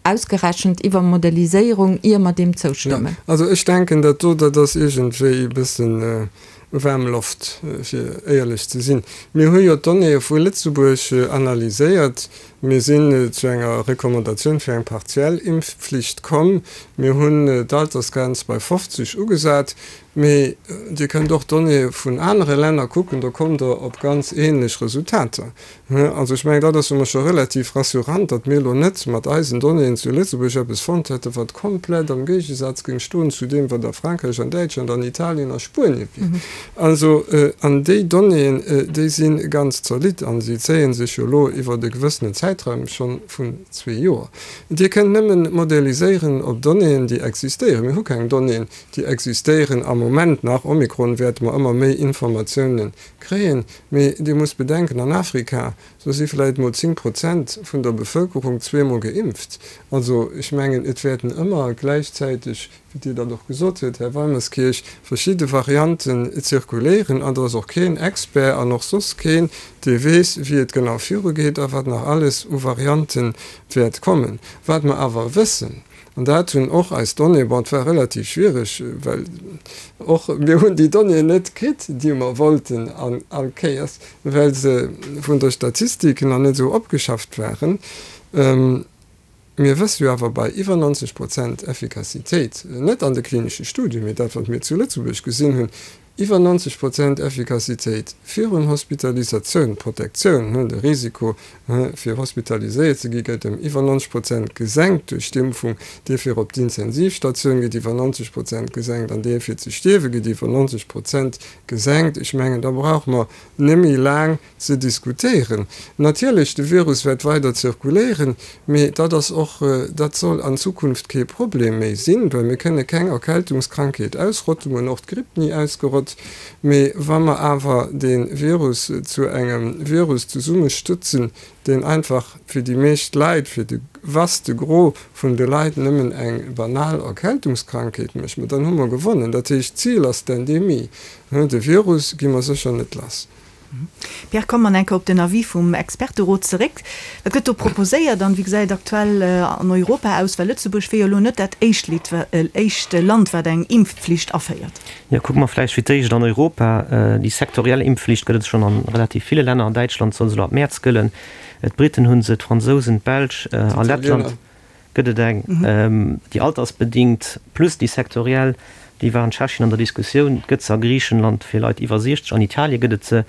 ausgerechent iwwer Modelliséierung, ier mer deem zoustëmmen. Jo, also ech denken, dat do, dat ass iergendwéi e bëssen waarm Loft, fir éierlech ze sinn. Mir hu jo d'Donnéeë vu Lëtzebuerg analyséiert. Mir sinn zu enger Recommandatioun fir eng partiell Impfflicht komm. Mir hunn d'Altersgrenz bei 50 ugesat. Mee Dir kënnt och d'Donnéeë vun anere Länner kucken, do kommt Der op ganz ähnlech Resultater. Also ech mengen, dat ass jo mol scho relativ rassurant, datt mir elo net mat eisen Donnéeën zu Lëtzebuerg eppes fonnt hätten, wat komplett am Géigesaz géing stoen zu deem, wat a Frankräich, an Däitschland, an Italien a Spuenie wier. Also, an déi Donnéeën, déi si ganz zolidd a si zéie sech jo elo iwwert e gewëssenen Zäitraum scho vun zwee Joer. Dir kënnt nëmmen modelliséieren op Donnéeën, déi existéieren. Mir hu keng Donnéeën, déi existéieren am Moment nach. Omikron wäerte mer ëmmer méi Informatiounen kréien. Mee Dir musst bedenken, an Afrika, do si vläicht mol 10 Prozent vun der Bevëlkerung zweemol geimpft. Also ech mengen, et wäerten ëmmer gläichzäiteg, wéi Dir dat och gesot huet, Här Weimerskirch, verschidde Varianten zirkuléieren. An do ass och keen Expert an och soss keen, dee weess, wéi et genau virugeet a wat nach alles u Variante wäert kommen. Wat mer awer wëssen, An dat hunn och eis Donnéeën, bon, et war relativ schwiereg, well och mir hunn déi Donnéeën net kritt, déi mer wollten an all Kéiers, well se vun der Statistik nach net esou opgeschafft waren. Mir wësse jo awer bei iwwer 90 Prozent Effikassitéit, net an de klinesche Studien, mee dat, wat mir zu Lëtzebuerg gesinn hunn, Iwwer 90 Prozent Effikassitéit virun Hospitalisatioun, Protektioun, de Risiko fir hospitaliséiert ze gi gëtt ëm iwwer 90 Prozent gesenkt duerch d'Impfung, dee fir op d'Intensivstatioun gëtt iwwer 90 Prozent gesenkt an dee fir ze stierwe gëtt iwwer 90 Prozent gesenkt. Ech mengen, da brauche mer net méi laang ze diskutéieren. Natierlech, de Virus wäert weider zirkuléieren, mee dat ass och, dat soll an Zukunft kee Problem méi sinn, well mir kënne keng Erkältungskrankheet ausrotten, mir hunn och d'Gripp ni ausgerott. Mee wa mer awer dee Virus zu engem Virus zesummestëtzen, deen einfach fir déi meescht Leit, fir de vaste Gros vun de Leit nëmmen eng banal Erkältungskrankheet mécht, ma dann hu mer gewonnen. Dat heescht, d'Zil ass d'Endemie. De Virus gi mer sécher net lass. Pierre, komme mer eng Kéier op den Avis vum Experterot zeréck. Wat gëtt do proposéiert an wéi gesäit et aktuell an Europa aus? Well Lëtzebuerg wier jo elo net dat éischt Land, wat eng Impfflicht aféiert. Jo, kucke mer vläicht fir d'éischt an Europa. Déi sektoriell Impfflicht gëtt et schonn a relativ ville Länner. An Däitschland soll se elo ab Mäerz gëllen. D'Briten hu se, d'Fransousen, d'Belsch a Lettland. Gëtt et eng, déi altersbedingt plus déi sektoriell, déi war an Tschechien an der Diskussioun, gëtt se a Griichenland fir Leit iwwer 60, an Italie gëtt et se,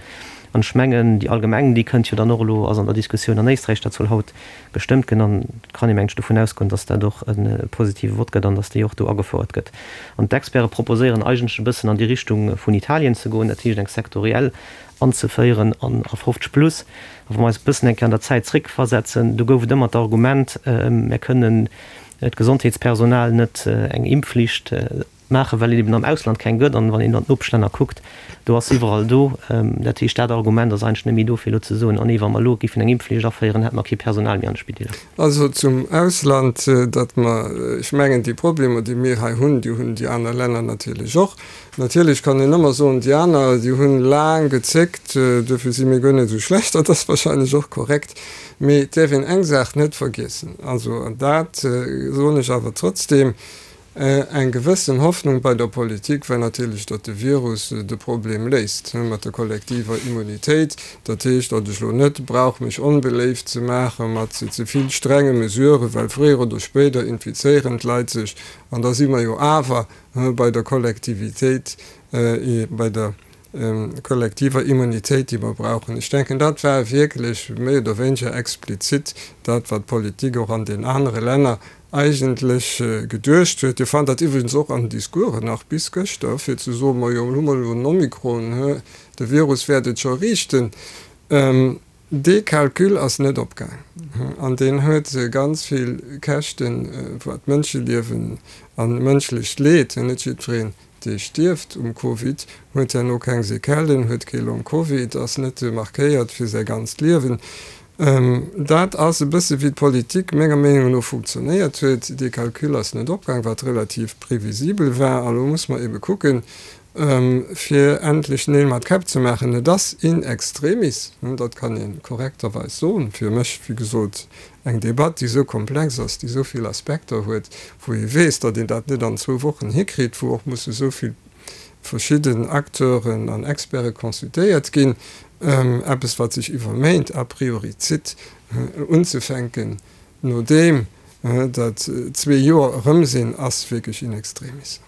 an ech mengen déi allgemeng, déi kënnt jo dann och elo, ass an der Diskussioun an Éisträich, dat soll haut gestëmmt ginn an et kann ee mengen ech dovun ausgoen, datt dat och e positive Vott gëtt an datt déi och do agefouert gëtt. An d'Experte proposéieren eigentlech e bëssen an déi Richtung vun Italien ze goen, dat heescht eng sektoriell anzeféieren an a 50 plus. A wa mer eis e bëssen eng Kéier an der Zäit zréckversetzen, do gouf et ëmmer d'Argument, mär kënnen d'Gesondheetspersonal net eng Impfflicht maachen, well et eben am Ausland keng gëtt. An wann een an d'Nopeschlänner kuckt, do ass se iwwerall do. Dat heescht, dat Argument ass eigentlech net méi do, fir elo ze soen, oh nee, wa mer elo géifen eng Impfflicht aféieren, hätte mer kee Personal méi an de Spideeler. Also zum Ausland, datt mer, ech mengen, déi Problemer, déi mir hei hunn, déi hunn déi aner Länner natierlech och. Natierlech kann een ëmmer soen, déi aner, déi hunn laang gezéckt, duerfir si mir guer net esou schlecht. Dat ass wahrscheinlech och korrekt. Mee et däerf een eng Saach net vergiessen, also, an dat soen ech awer trotzdem, Eng gewëssen Hoffnung bei der Politik war natierlech, datt de Virus de Problem léist mat der kollektiver Immunitéit. Dat heescht, datt ech elo net brauch mech onbeléift ze maache mat ze vill strenge Mesuren, well fréier oder spéider infizéieren d'Leit sech an da si mer jo awer bei der Kollektivitéit, bei der. kollektiver Immunitéit, déi mer brauchen. Ech denken, dat war wierklech méi oder wéineger explizit dat, wat d'Politik och an den anere Länner eigentlech geduecht huet. Dir fannt dat iwwregens och an den Discoursen nach bis gëschter, fir ze soen, Majo, elo hu mer elo den Omikron, de Virus wäert et scho riichten. Dee Calcul ass net opgaang an deen huet ganz vill Käschten, wat Mënscheliewen a mënschlecht Leed, net jiddwereen, dee stierft um Covid, huet herno keng Sequellen, huet kee Long Covid, ass net markéiert fir säi ganzt Liewen. Dat ass e bësse wéi d'Politik menger Meenung no funktionéiert huet. Dee Calcul ass net opgaang, wat relativ previsibel war. A lo muss mer ebe kucken, fir endlech Neel mat Käpp ze maachen. Et ass in extremis, dat kann ee korrekterweis soen, fir mech, wéi gesot, eng Debatt, déi esou komplex ass, déi esou vill Aspekter huet, wou ee weess, datt een dat net an zwou Wochen hikritt, wou och musse esou vill verschidden Acteuren an Experte consultéiert ginn, eppes, wat sech iwwer Méint a priori zitt, unzefänken, nodeem datt zwee Joer erëm sinn, ass wierklech in extremis.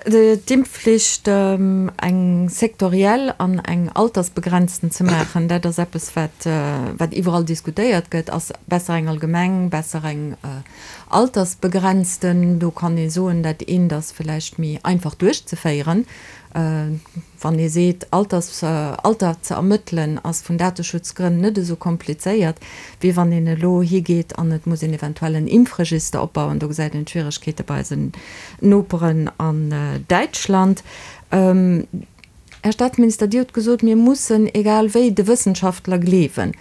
D'Impfflicht eng sektoriell an eng altersbegrenzten ze maachen, dat ass eppes, wat wat iwwerall diskutéiert gëtt. Ass besser eng allgemeng, besser eng altersbegrenzten? Do kann ee soen, dat eent ass vläicht méi einfach duerchzeféieren. Wann ee seet, Alters, Alter ze ermëttelen ass vun Dateschutzgrënn net esou komplizéiert, wéi wann een elo higeet an et muss een eventuell en Impfregister opbauen. Do gesäit een d'Schwieregkeete bei eisen Noperen an Däitschland. Här Staatsminister, Dir hutt gesot, mir mussen egal wéi de Wëssenschaftler gleewen.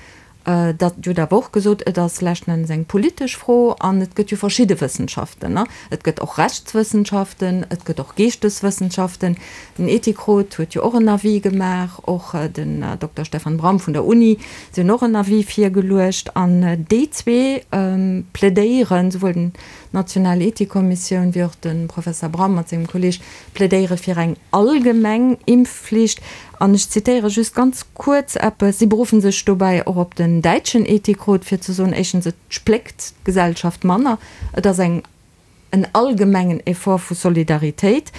Dat, Dir hutt awer och gesot, et ass leschten Endes eng politesch Fro an et gëtt jo verschidde Wëssenschaften. Et gëtt och Rechtswëssenschaften, et gëtt och Geeschteswëssenschaften. Den Ethikrot huet jo och en Avis gemaach, och den Dokter Stefan Braum vun der Uni, si hunn och en Avis virgeluecht. An déi zwee plädéieren, souwuel den d'National Ethikkommissioun wéi och de Professer Braum mat sengem Kolleeg, plädéiere fir eng allgemeng Impfflicht. An ech zitéiere just ganz kuerz eppes, Si beruffen sech dobäi och op den däitschen Ethikrot, fir ze soen, éischtens, et spléckt d'Gesellschaft manner, et ass eng en allgemengen Effort vu Solidaritéit.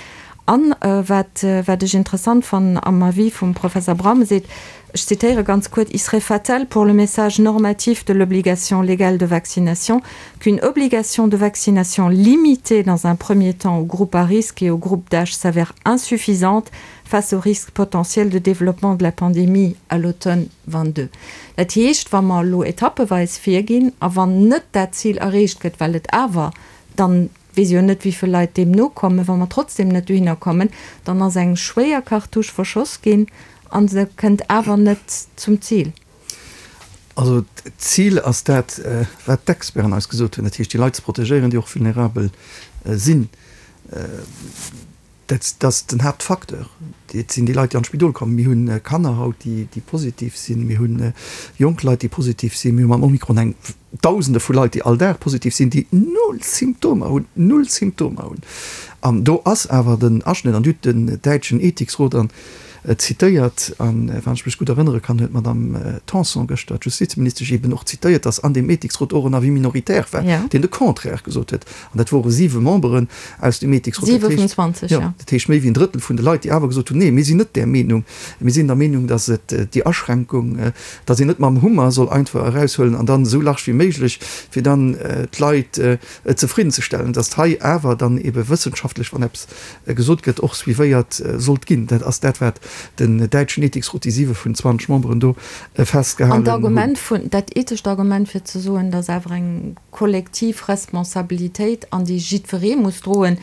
An wat wat ech interessant fannen am Avis vum Professer Braum, e seet, ech zitéiere ganz kuerz, Il serait fatal pour le message normatif de l'obligation légale de vaccination qu'une obligation de vaccination limitée dans un premier temps aux groupes à risque et aux groupes d'âge s'avère insuffisante face au risque potentiel de développement de la pandémie à l'automne 22. Dat heescht, wa mer elo etappeweis virginn a wann net dat Zil erreecht gëtt, well et awer dann, weess jo net wéivill Leit deem nokommen, wa mer trotzdem net dohinner kommen, dann ass eng schwéier Cartouche verschoss ginn a se kënnt awer net zum Zil. Also d'Zil ass dat, wat d'Experten eis gesot hunn, dat heescht déi Leit ze protegéieren, déi och vulnerabel sinn. Dat ass den Haaptfacteur. Et sinn déi Leit, déi an d'Spidol kommen. Mir hu Kanner haut, déi positiv sinn. Mir hu jonk Leit, déi positiv sinn. Mir hu mam Omikron eng Dausende vu Leit, déi all Dag positiv sinn, déi null Symptomer hunn, null Symptomer hunn. An do ass awer den Aschnëtt, an Dir hutt den däitschen Ethiksrot an zitéiert, an wann ech mech gutt erënnere kann, huet d'Madame Tanson gëschter, d'Justizministesch, eeben och zitéiert, datt an deem Ethiksrot och en Avis minoritaire war, deen de Contraire gesot huet. An dat wore siwe Memberen aus dem Ethiksrot. Siwe vun 20, jo. Dat heescht méi wéi en Drëttel vun de Leit, déi awer gesot hunn, Nee, mir sinn net där Meenung. Mir sinn der Meenung, datt et déi Aschränkung, datt een net mam Hummer soll einfach eraushuelen an dann esou large wéi méiglech, fir dann d'Leit zefriddenzestellen, datt hei awer dann ebe wëssenschaftlech, wann eppes gesot gëtt, och suivéiert sollt ginn. Dat ass dat, wat den däitschen Ethiksrot, déi siwe vun 20 Memberen do festgehalen hunn. An d'Argument vun, dat ethescht Argument fir ze soen, datt awer eng kollektiv Responsabilitéit an déi jiddweree muss droen,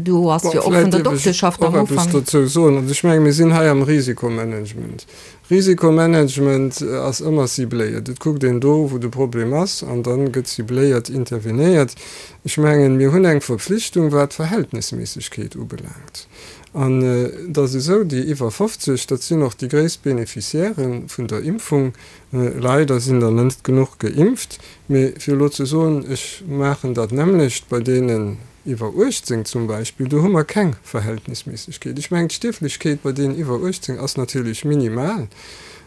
do ass jo och vun der Dokteschaft am Ufank. Vläicht dierf ech och eppes dozou soen. Also ech menge mir sinn hei am Risikomanagement. Risikomanagement ass ëmmer cibléiert. Et kuckt een do, wou de Problem ass, an da gëtt cibléiert intervenéiert. Ech mengen, mir hunn eng Verpflichtung, wat d'Verhältnisméissegkeet ubelaangt. An et ass esou, déi iwwer 50, dat sinn och déi gréisst Beneficiairë vun der Impfung. Leider sinn der net genuch geimpft. Mee fir elo ze soen, ech maachen dat nämmlecht bei deenen iwwer 18 zum Beispill, do hu mer keng Verhältnisméissegkeet. Ech mengen, d'Stierflechkeet bei deenen iwwer 18 ass natierlech minimal.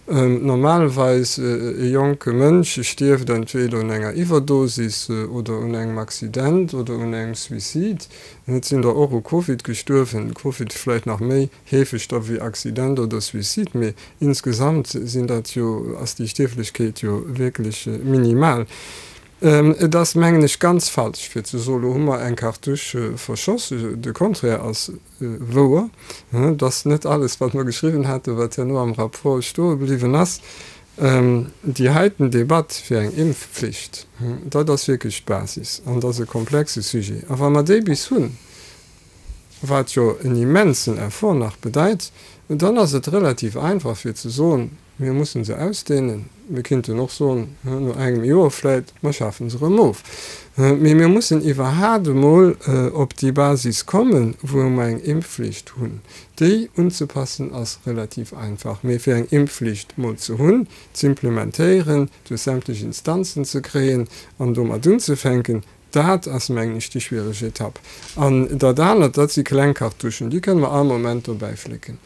Normalerweis e jonke Mënsch stierft entweder un enger Iwwerdosis oder un engem Accident oder un engem Suicide. Et sinn der och u Covid gestuerwen, Covid vläicht nach méi heefeg da wéi Accident oder Suicide, mee insgesamt sinn dat jo, ass déi Stierflechkeet jo wierklech minimal. Et ass, mengen ech, ganz falsch fir ze soen, lo hu mer eng Cartouche verschoss. De Contraire ass wouer. Et ass net alles, wat mer geschriwwen haten, wat herno am Rapport stoe bliwwen ass. Déi heiten Debatt fir eng Impfpflicht, dat ass wierklech d'Basis an dat ass e komplexe Sujet. A wa mer déi bis hunn, wat jo en immensen Effort nach bedeit, dann ass et relativ einfach fir ze soen, Mir mussen se ausdehnen. Mir kinnten och soen, no engem Joer vläit, mer schafe se erëm of. Mee mir mussen iwwerhaat emol op déi Basis kommen, wou mer eng Impfflicht hunn. Déi unzepassen ass relativ einfach. Mee fir eng Impfflicht mol ze hunn, z'implementéieren, duerch sämtlech Instanzen ze kréien an domat unzefänken, dat ass, mengen ech, déi schwiereg Etapp. An dat anert, dat si kleng Cartouchen, déi kënne mer all Moment dobäiflécken.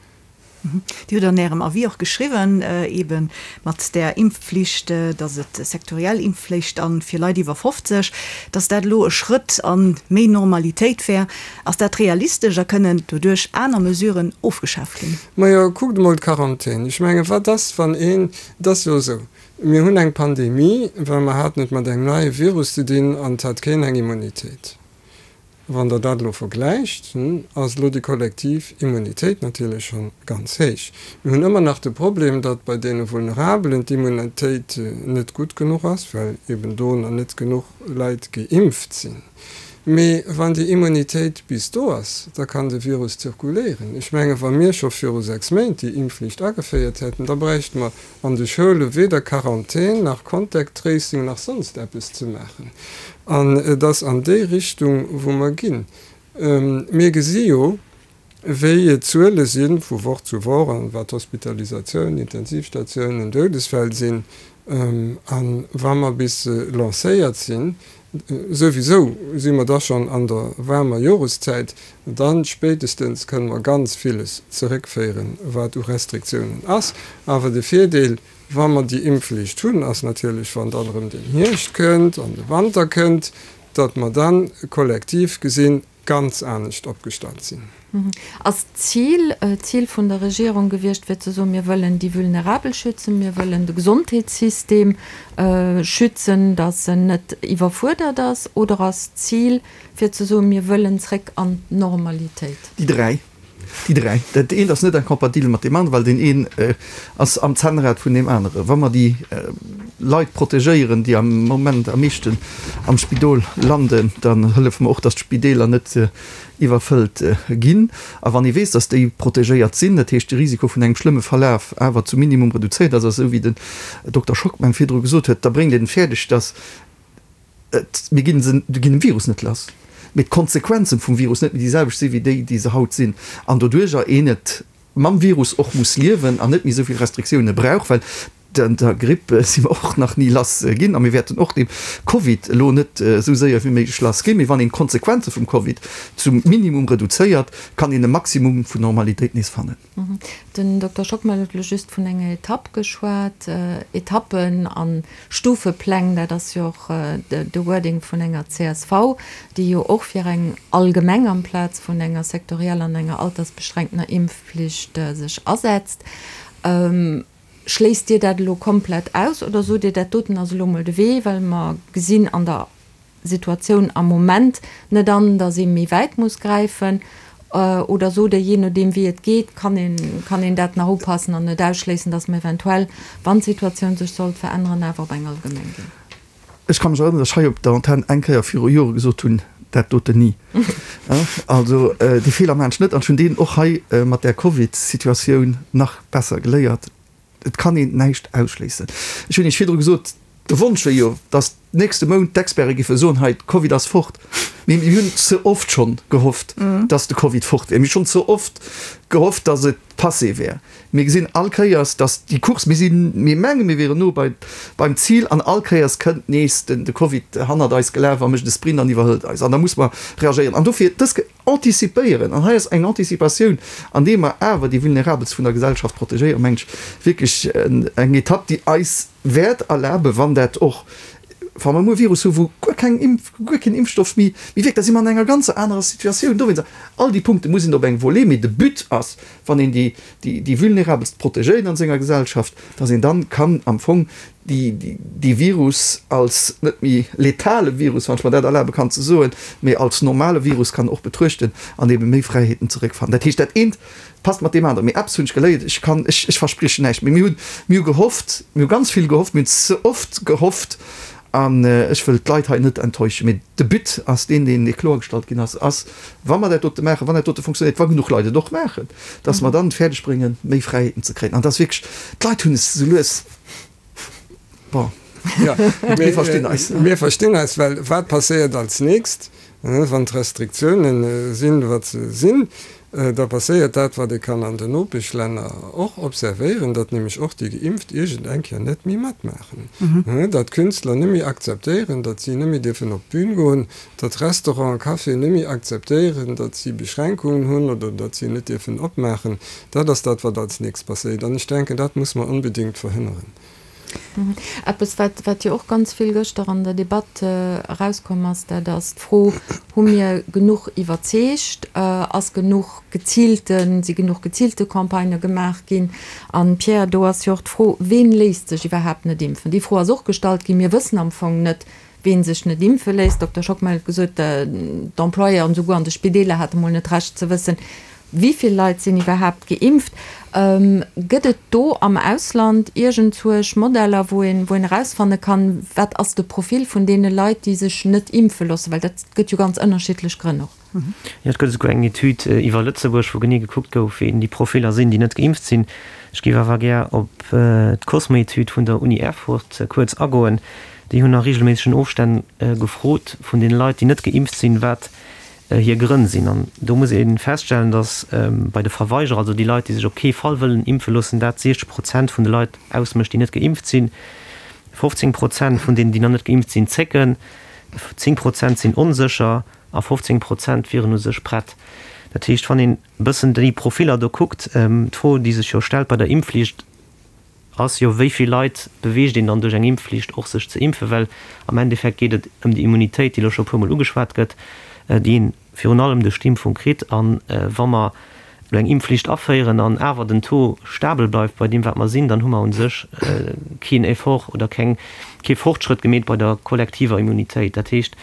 Dir hutt an Ärem Avis och geschriwwen, eebe mat där Impfflicht, datt et sektoriell Impfflicht a fir Leit iwwer 50, datt dat elo e Schrëtt a méi Normalitéit wär. Ass dat realistesch a kënnen doduerch aner Mesuren ofgeschaaft ginn? Majo, kuckt emol d'Quarantän. Ech menge wat ass, wann een, et ass jo esou, mir hunn eng Pandemie, well mer haten et mat engem neie Virus ze dinn an et hat keen eng Immunitéit. Wann Der dat elo vergläicht, ass elo déi kollektiv Immunitéit natierlech scho ganz héich. Mir hunn ëmmer nach de Problem, datt bei deene Vulnerabelen d'Immunitéit net gutt genuch ass, well eben do nach net genuch Leit geimpft sinn. Mee wann déi Immunitéit bis do ass, da kann de Virus zirkuléieren. Ech menge wa mir scho viru 6 Méint déi Impfflicht ageféiert hätten, da bräichte mer an de Schoule weder Quarantän nach Contact Tracing nach sonst eppes ze maachen. An et ass an déi Richtung, wou mer ginn. Mir gesi jo, wéi d'Zuele si vu Woch zu Woch an wat Hospitalisatiounen, Intensivstatiounen, Doudesfäll sinn. A wa mer bis lancéiert sinn, souwisou si mer da schonn an der waarmer Joreszäit, dann spéitestens kënne mer ganz villes zeréckféieren, wat u Restriktiounen ass. Awer de Virdeel, wa mer déi Impfflicht hunn, ass natierlech, wann dann erëm den Hierscht kënnt an de Wanter kënnt, datt mer dann kollektiv gesinn ganz anescht opgestallt sinn. Ass d'Zil, d'Zil vun der Regierung gewiescht, fir ze soen, mir wëllen déi Vulnerabel schützen, mir wëllen de Gesondheetssystem schützen, datt en net iwwerfuerdert ass, oder ass d'Zil, fir ze soen, mir wëllen zréck an d'Normalitéit? Déi 3. Déi 3. Dat eent ass net incompatibel mat deem aneren, well deen een ass am Zännrad vun deem aneren. Wa mer déi Leit protegéieren, déi am Moment am meeschten am Spidol landen, dann hëllefe mer och, datt d'Spideeler net iwwerfëllt ginn. A wann ee weess, datt déi protegéiert sinn, dat heescht de Risiko vun engem schlëmme Verlaf awer zum Minimum reduzéiert ass, esou wéi den Dokter Schockmel virdru gesot huet, da bréngt een et fäerdeg, datt Et, mir ginn se, mir ginn dem Virus net lass, mee d'Konsequenzen vum Virus net méi déi selwecht sinn, wéi déi, déi se haut sinn. An doduerjer een et mam Virus och muss liewen an net méi esou vill Restriktioune brauch, well der Gripp si mer och nach ni lass ginn a mir wäerten och dem Covid elo net esou séier wéi méiglech lass ginn. Mee wann een d'Konsequenze vum Covid zum Minimum reduzéiert, kann een e Maximum vun Normalitéit nees fannen. Den Dokter Schockmel huet elo just vun enger Etapp geschwat. Etappen a Stufepläng, dat ass jo och de Wording vun enger csv, déi jo och fir eng allgemeng amplaz vun enger sektorieller an enger altersbeschränktener Impfflicht sech asetzt. Schléisst Dir dat elo komplett aus oder sot Dir, dat doten ass elo mol de Wee, well mer gesinn an der Situatioun am Moment net an, datt ee méi wäit muss gräifen? Oder sot Der, jee nodeem wéi et geet, kann een, kann een dat nach upassen an net ausschléissen, datt mer eventuell, wann d'Situatioun sech sollt veränneren, awer op eng allgemeng ginn? Ech ka mech erënneren, datt ech hei op der Antenn eng Kéier viru Jore gesot hunn, dat doten ni. Also dee Feeler maachen ech net an ech hunn deen och hei mat där Covid-Situatioun nach besser geléiert. Et kann een näischt ausschléissen. Ech hunn Iech virdru gesot, de Wonsch wier jo, datt nächste Mount d'Experte giffe soen, hei, de Covid ass fort. Mee mir hunn ze oft schonn gehofft, datt de Covid fort wier. Mir hu schonn ze oft gehofft, datt et. Passé wär. Mir gesinn all Kéiers, dass déi Course, mir sinn, mir mengen, mir wieren no bei, beim Zil an all Kéiers kënnt nees den, de Covid hannert eis gelaf a mécht e Sprint an iwwerhëlt eis. An da muss mer reagéieren. An dofir dës anticipéieren, an hei ass eng Anticipatioun, andeem mer awer déi Vulnerabelst vun der Gesellschaft protegéieren, meng ech, wierklech eng Etapp, déi eis wäert erlaben, wann dat och, wa mer muer e Virus hu wou guer keng Impf, guer keen Impfstoff méi wierkt, da si mer an enger ganzer anerer Situatioun. Dowéinst, all déi Punkte muss een op eng Volée, mee de But ass, wann een déi, déi Vulnerabelst protegéiert an senger Gesellschaft, dass een dann kann am Fong déi, dee Virus als net méi letale Virus, wann ech mer dat erlabe kann ze soen, mee als normale Virus kann och betruechten an ebe méi Fräiheeten zeréckfannen. Dat heescht, dat eent passt mat deem aneren. Mee eppes hunn ech geléiert, ech kann, ech, ech verspriechen näischt, mee mir hunn, mir hu gehofft, mir hu ganz vill gehofft, mir hunn ze oft gehofft an ech wëll d'Leit hei net enttäuschen. Mee de But ass deen, deen kloergestallt ginn ass, ass, wa mer dat dote maachen, wann dat dote funktionéiert, wa genuch Leit et och maachen, dass mer dann et fäerdeg bréngen, méi Fräiheeten ze kréien. An dass wierklech, d'Leit hunn es esou lues, bon, mir verstinn eis. Mir verstinn eis, well wat passéiert als nächst, wann d'Restriktiounen sinn, wat se sinn? Da passéiert dat, wat ee kann an den Nopeschlänner och observéieren, datt nämlech och déi Geimpft iergend eng Kéier net méi matmaachen, datt Künstler net méi akzeptéieren, datt si net méi dierfen op d'Bün goen, datt Restauranten, Caféen net méi akzeptéieren, datt si Beschränkungen hunn oder datt si net dierfen opmaachen. Dat ass dat, wat als nächst passéiert. An ech denken, dat muss mer onbedéngt verhënneren. Eppes, wat, wat jo och ganz vill gëschter an der Debatt erauskomm ass, dat ass d'Fro, Hu mir genuch iwwerzeegt? Ass genuch geziilte, si genuch geziilte Campagnë gemaach ginn? An, Pierre, do ass jo och d'Fro, Ween léisst sech iwwerhaapt net impfen? Déi Fro ass och gestallt ginn. Mir wëssen am Fong net, Ween sech net impfe léisst, Dokter Schockmel huet gesot, d'Employeuren esouguer an de Spideeler hate mol net d'Recht ze wëssen, wéi vill Leit sinn iwwerhaapt geimpft. Gëtt et do am Ausland iergendzwousch Modeller, wou een, wou een erausfanne kann, wat ass de Profil vun deene Leit, déi sech net impfe loossen? Well dat gëtt jo ganz ënnerschiddlech Grënn och. Jo, et gëtt esouguer eng Etüd iwwer Lëtzebuerg, wou genee gekuckt gouf, wéi déi Profiller sinn, déi net geimpft sinn. Ech géif awer gär op d'Cosmo-Etüd vun der Uni Erfurt kuerz agoen. Déi hunn a reegelméissegen Ofstänn gefrot vun deene Leit, déi net geimpft sinn, wat hir Grënn sinn. An do muss ee feststellen, datt bei de Verweigerer, also déi Leit, déi sech op kee Fall wëllen impfe loossen, dat 60 Prozent vun de Leit ausmécht, déi net geimpft sinn. 15 Prozent vun deenen, déi nach net geimpft sinn, zécken, 10 Prozent sinn onsécher a 15 Prozent wieren u sech prett. Dat heescht, wann een e bëssen déi Profiller do kuckt, d'Fro, déi sech jo stellt bei der Impfflicht, ass jo, wéi vill Leit beweegt een dann duerch eng Impfflicht och sech ze impfen? Well am Endeffekt geet et ëm déi Immunitéit, déi elo scho e puermol ugeschwat gëtt, déi een virun allem duerch d'Impfung kritt. A wa mer elo eng Impfflicht aféieren an awer den Taux stabel bleift bei deem wat mer sinn, dann hu mer u sech keen Effort oder keng, kee Fortschrëtt gemeet bei der kollektiver Immunitéit. Dat heescht,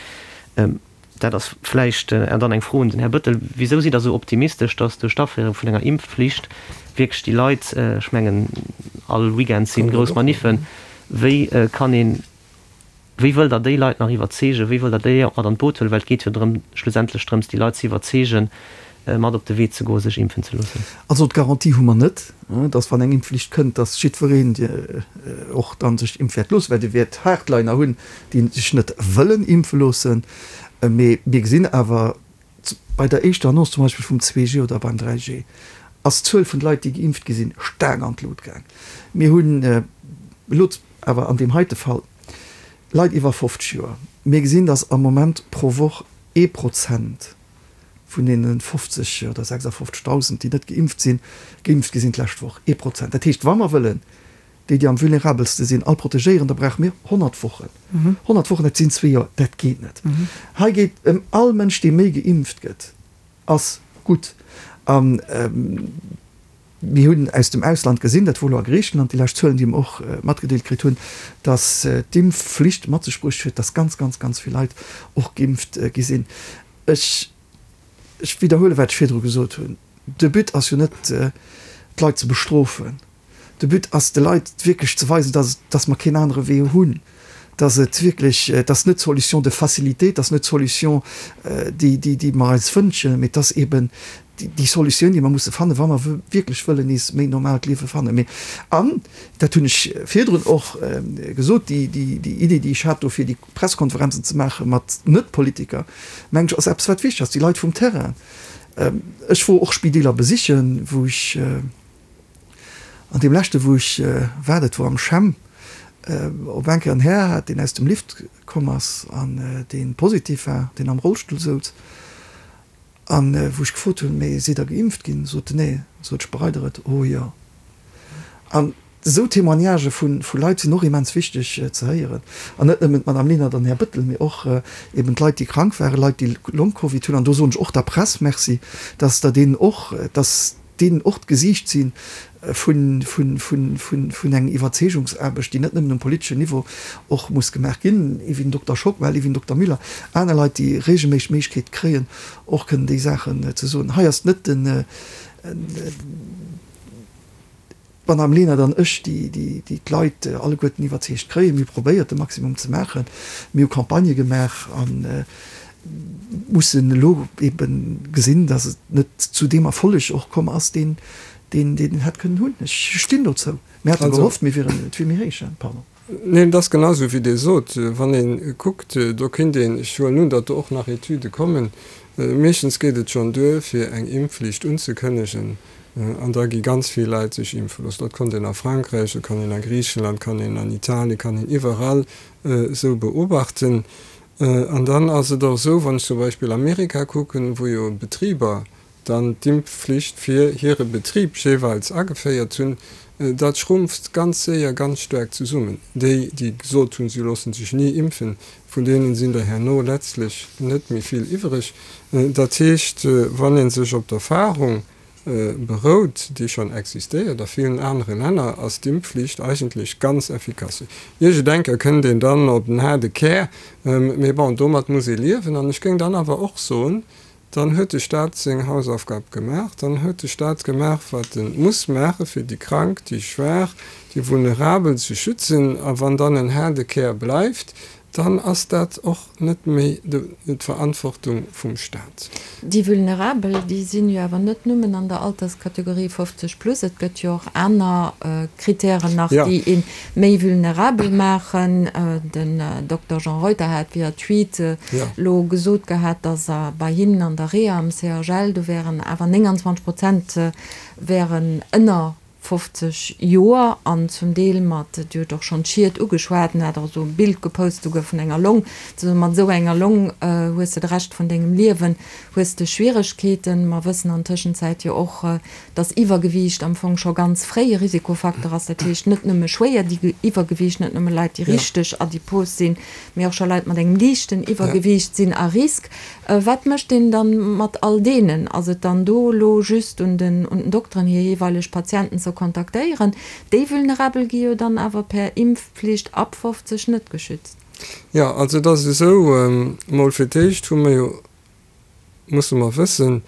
dat ass vläicht dann eng Fro un den Här Bettel, Wisou sidd Der esou optimistesch, datt duerch d'Aféierung vun enger Impfflicht wierklech déi Leit, ech mengen all Weekend si grouss Maniffen, wéi kann een, Wéi wëllt Der déi Leit nach iwwerzeegen? Wéi wëllt Der déi och mat an d'Boot huelen? Well et geet jo drëm, schlussendlech drëms, déi Leit ze iwwerzeegen, mat op de Wee ze goen, sech impfen ze loossen. Also d'Garantie hu mer net, dass wann eng Impfflicht kënnt, dass jiddwereen och dann sech impfe wäert loossen, well Dir wäert Hardliner hunn, déi sech net wëllen impfe loossen. Mee mir gesinn awer bei der éischter Annonce zum Beispill vum 2G oder beim 3G, ass d'Zuel vun de Leit, déi geimpft gi sinn, staark an d'Lut gaang. Mir hunn elo awer an deem heite Fall Leit iwwer 50 Joer. Mir gesinn, datt am Moment pro Woch ee Prozent vun deene 50 oder 56.000, déi net geimpft sinn, geimpft gi sinn d'lescht Woch. Ee Prozent. Dat heescht, wa mer wëllen déi, déi am vulnerabelste sinn, all protegéieren, da brauche mir 100 Wochen. 100 Wochen, dat sinn zwee Joer. Dat geet net. Hei geet ëm all Mënsch, dee méi geimpft gëtt, ass gutt. A mir hunn aus dem Ausland gesinn, dat wor elo a Griichenland déi lescht Zuelen, déi mer och matgedeelt kritt hunn, datt d'Impfflicht mat sech bruecht huet, datt ganz, ganz, ganz vill Leit och geimpft gi sinn. Ech, ech widderhuelen, wat ech virdru gesot hunn, De But ass jo net, d'Leit ze bestrofen. De But ass, de Leit wierklech ze weisen, dass, dass mer keen anere Wee hunn, dass et wierklech, dass net d'Solution de facilité, dass net d'Solution, déi, déi, déi mer eis wënschen, mee dass eben déi Solutioun, déi mer musse fannen, wa mer wierklech wëllen nees méi normaalt Liewe fannen. Mee, an dat hunn ech virdrun och gesot, déi, déi, déi Idee, déi ech hat do fir déi Pressekonferenzen ze maache mat Net-Politiker, mengen ech, ass eppes, wat wichteg ass, déi Leit vum Terrain. Ech wor och Spideeler besichen, wou ech. An deem leschte wou ech war, dat wor am CHEM, op eng Kéier en Här hat, deen aus dem Lift komm ass an dee positiv war, deen am Rollstull souz. An wou ech gefrot hunn, Mee sidd Der geimpft ginn? Sot en, Nee. Sot ech, Bereit Der et? Oh jo. An esou Témoignagë vu Leit sinn och immens wichteg ze héieren. An net nëmmen d'Madame Lenert an den Här Bettel, mee och eben d'Leit, déi krank waren, Leit, déi Long-Covid hunn. An do soen ech och der Press Merci, dass Der deenen och, dass deenen och d'Gesiicht si vun enger Iwwerzeegungsaarbecht, déi net nëmmen um politeschen Niveau och muss gemaach ginn, ewéi den Dokter Schockmel, ewéi den Dokter Müller, aner Leit, déi regelméisseg d'Méiglechkeet kréien, och kënnen déi Saachen ze soen. Hei ass net den. D'Madame Lenert an ech, déi d'Leit alleguerten iwwerzeegt kréien, mir hu probéiert, de Maximum ze maachen. Mir hu Campagnë gemaach a mussen elo ebe gesinn, datt et net zu deem Erfolleg och komm ass, deen een hätt kënnen hunn. Ech stinn dozou. Mir hate gehofft, mir wieren, et wier méi héich. Pardon. Neen, et ass genau esou, wéi Dir sot. Wann ee kuckt, do kéint een, ech huelen un, datt do och nach Etüde kommen, meeschtens geet et schonn duer, fir eng Impfflicht unzekënnegen, an da gi ganz vill Leit sech impfe loossen. Dat konnt een a Frankräich, dat kann een a Griichenland, kann een an Italien, kann een iwwerall esou beobachten. An dann ass et och esou, wann ech zum Beispill Amerika kucken, wou jo Betriber dann d'Impfflicht fir hire Betrib jeeweils ageféiert hunn, dat schrumpft ganz séier ganz staark zesummen. Déi, déi gesot hunn, si loosse sech ni impfen, vun deenen sinn der herno letztlech net méi vill iwwereg. Dat heescht, wann ee sech op d'Erfahrung berout, déi schonn existéiert a villen anere Länner, ass d'Impfflicht eigentlech ganz effikass. Iergendenker kënnt een dann op den haarde Kär, mee bon, domat muss ee liewen. An ech géing dann awer och soen, Dann huet de Staat seng Hausaufgab gemaach. Dann huet de Staat gemaach, wat e muss maachen, fir déi Krank, déi Schwaach, déi Vulnerabel ze schützen. A wann dann en haarde Kär bleift, dann ass dat och net méi d'Verantwortung vum Staat. Déi Vulnerabel, déi sinn jo awer net nëmmen an der Alterskategorie 50 plus. Et gëtt jo och aner Kritären nach, déi ee méi vulnerabel maachen. Den Dokter Jean Reuter hat via Tweet elo gesot gehat, datt bei hinnen an der Reha am CHL, do wären awer 29 Prozent wären ënner 50 Joer an zum Deel mat, Dir hutt och schonn d'Schied ugeschwat, en hat och esou e Bild gepost souguer vun enger Long, ze soen, mat esou enger Long hues de de Rescht vun dengem Liewen hues de Schwieregkeeten. Mer wëssen an Tëschenzäit jo och, dass Iwwergewiicht am Fong scho ganz fréi e Risikofaktor ass, dat heescht net nëmme schwéier Iwwergewiicht, net nëmme Leit, déi richteg adipos sinn, mee och scho Leit mat engem liichten Iwwergewiicht sinn à risque. Wat mécht een dann mat all deenen? Ass et dann do elo just un den un den Dokteren, hir jeeweileg Patienten ze kontaktéieren? Déi Vulnerabel gi jo dann awer per Impfpflicht ab 50 net geschützt. Jo, also et ass esou, mol fir d'éischt hu mer jo musse mer wëssen,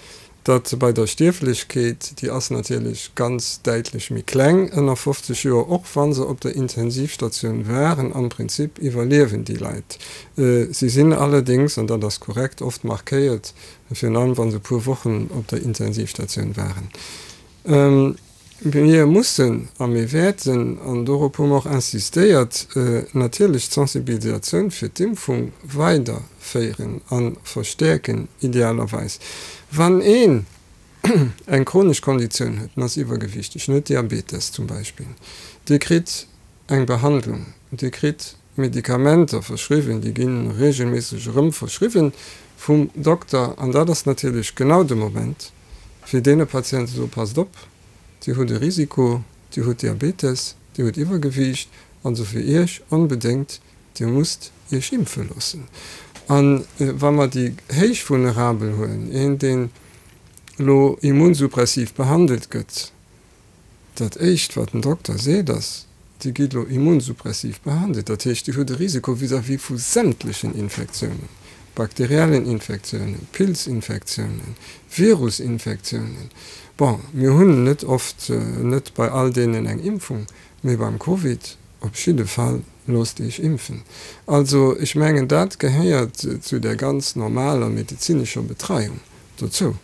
datt bei der Stierflechkeet, déi ass natierlech ganz däitlech méi kleng ënner 50 Joer, och wa se op der Intensivstatioun waren, am Prinzip iwwerliewen déi Leit. Si sinn allerdéngs, an dat ass korrekt, oft markéiert, virun allem wa se e puer Wochen op der Intensivstatioun waren. Mir mussen a mir wäerten, an dorop hu mer och insistéiert, natierlech d'Sensibilisatioun fir d'Impfung weiderféieren a verstäerken, idealerweis. Wann een eng chronesch Konditioun huet, en ass iwwergewichteg, en huet Diabetes zum Beispill, dee kritt eng Behandlung, dee kritt Medikamenter verschriwwen, déi gi reegelméisseg erëm verschriwwen vum Dokter an dat ass natierlech genau de Moment, fir deene Patienten ze soen, Passt op, Dir hutt e Risiko, Dir hutt Diabetes, Dir hutt Iwwergewiicht, also fir Iech onbedéngt, Dir musst Iech impfe loossen. A wa mer déi héich Vulnerabel huelen, een deen elo immunsuppressiv behandelt gëtt, Dat éischt wat den Dokter seet ass, Dir gitt elo immunsuppressiv behandelt, dat heescht Dir hutt e Risiko vis-à-vis vu sämtlechen Infektiounen, bakteriellen Infektiounen, Pilzinfektiounen, Virusinfektiounen. Bon, mir hunn net oft, net bei all deenen eng Impfung, mee beim Covid op jidde Fall, loosst Iech impfen. Also ech mengen dat gehéiert zu der ganz normaler medezinescher Betreiung dozou.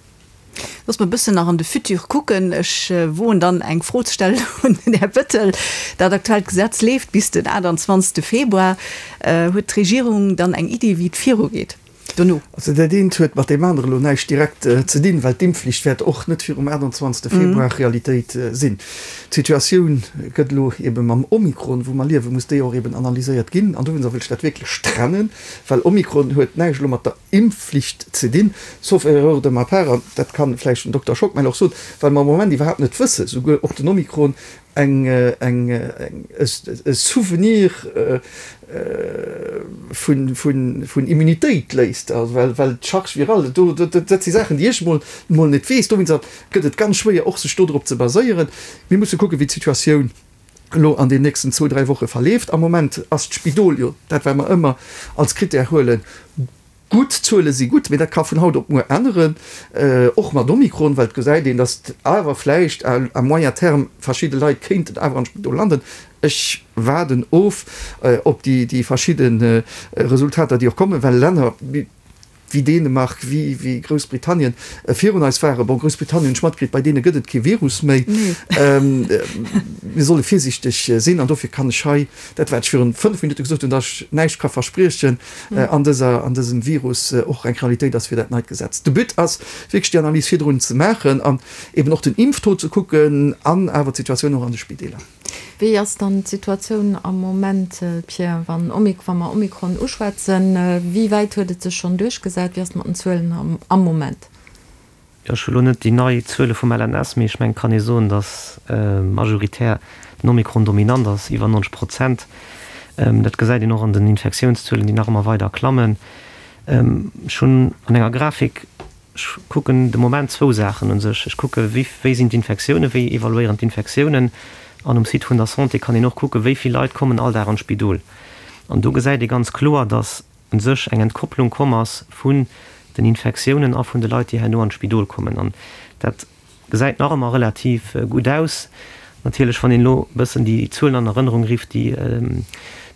Looss mer e bëssen nach an de Futur kucken. Ech woen dann eng Fro ze stellen un den Här Bettel. Dat aktuellt Gesetz leeft bis den 28. Februar. Huet d'Regierung dann eng Iddi, wéi et virugeet? Dono. Also dat eent huet mat deem anere elo näischt direkt ze dinn, well d'Impfflicht wäert och net virum 28. Februar Realitéit sinn. D'Situatioun gëtt elo ebe mam Omikron, wou mer liewen, muss déi och eben analyséiert ginn. An dowéinster wëll ech dat wierklech trennen, well Omikron huet näischt elo mat der Impfflicht ze dinn, sauf erreur de ma part, an dat kann vläicht den Dokter Schockmel och soen, well mer am Moment iwwerhaapt net wëssen, souguer ob den Omikron eng, eng, e Souvenir vun, vun, vun Immunitéit léisst, also well, well d'Charge virale do, dat si Saachen, déi ech emol, emol net weess. Dowéinster gëtt et ganz schwéier och sech do drop ze baséieren. Mir musse kucken, wéi d'Situatioun elo an den nächsten zwou, dräi Woche verleeft. Am Moment ass d'Spidol jo dat, wat mer ëmmer als Critère huelen, gutt. D'Zuele si gutt, mee dat ka vun haut op muer änneren, och mat Omikron, well et gesäit een, datt awer vläicht à moyen terme verschidde Leit kéinten awer an d'Spidol landen. Ech waarden of op déi verschidde Resultater, déi och kommen, well Länner, wéi Dänemark, wéi Groussbritannien virun eis waren. Bon, Groussbritannien hunn ech matkritt, bei deene gëtt et kee Virus méi. Mir solle virsiichteg sinn an dofir kann ech hei dat, wat ech virun 5 Minutte gesot hunn, datt ech näischt ka verspriechen an dëser, an dësem Virus och eng Realitéit ass fir dat neit Gesetz. De But ass wierklech déi Analys virdrun ze maachen an eben och den Impftaux ze kucken an awer d'Situatioun och an de Spideeler. Wéi ass dann d'Situatioun am Moment, Pierre, wann wa mer Omikron uschwätzen? Wéi wäit huet et sech schonn duerchgesat? Wéi ass et mat den Zuelen am Moment? Jo, ech hu lo net déi nei Zuele vum LNS, mee ech mengen, et kann ee soen, datt majoritär den Omikron dominant ass, iwwer 90 Prozent. Dat gesäit een och an den Infektiounszuelen, déi nach ëmmer weider klammen. Ech hunn an enger Grafik Ech kucken de Moment zwou Saachen u sech. Ech kucke wéi wéi sinn d'Infektiounen, wéi evaluéieren d'Infektiounen. An um Site vun der Santé kann een och kucken, wéi vill Leit kommen all Dag an d'Spidol. An do gesäit ee ganz kloer, datt u sech eng Entkopplung komm ass vun den Infektiounen a vun de Leit, déi herno an d'Spidol kommen. An dat Gesäit nach ëmmer relativ gutt aus. Natierlech, wann een elo e bëssen déi Zuelen an Erënnerung rifft, déi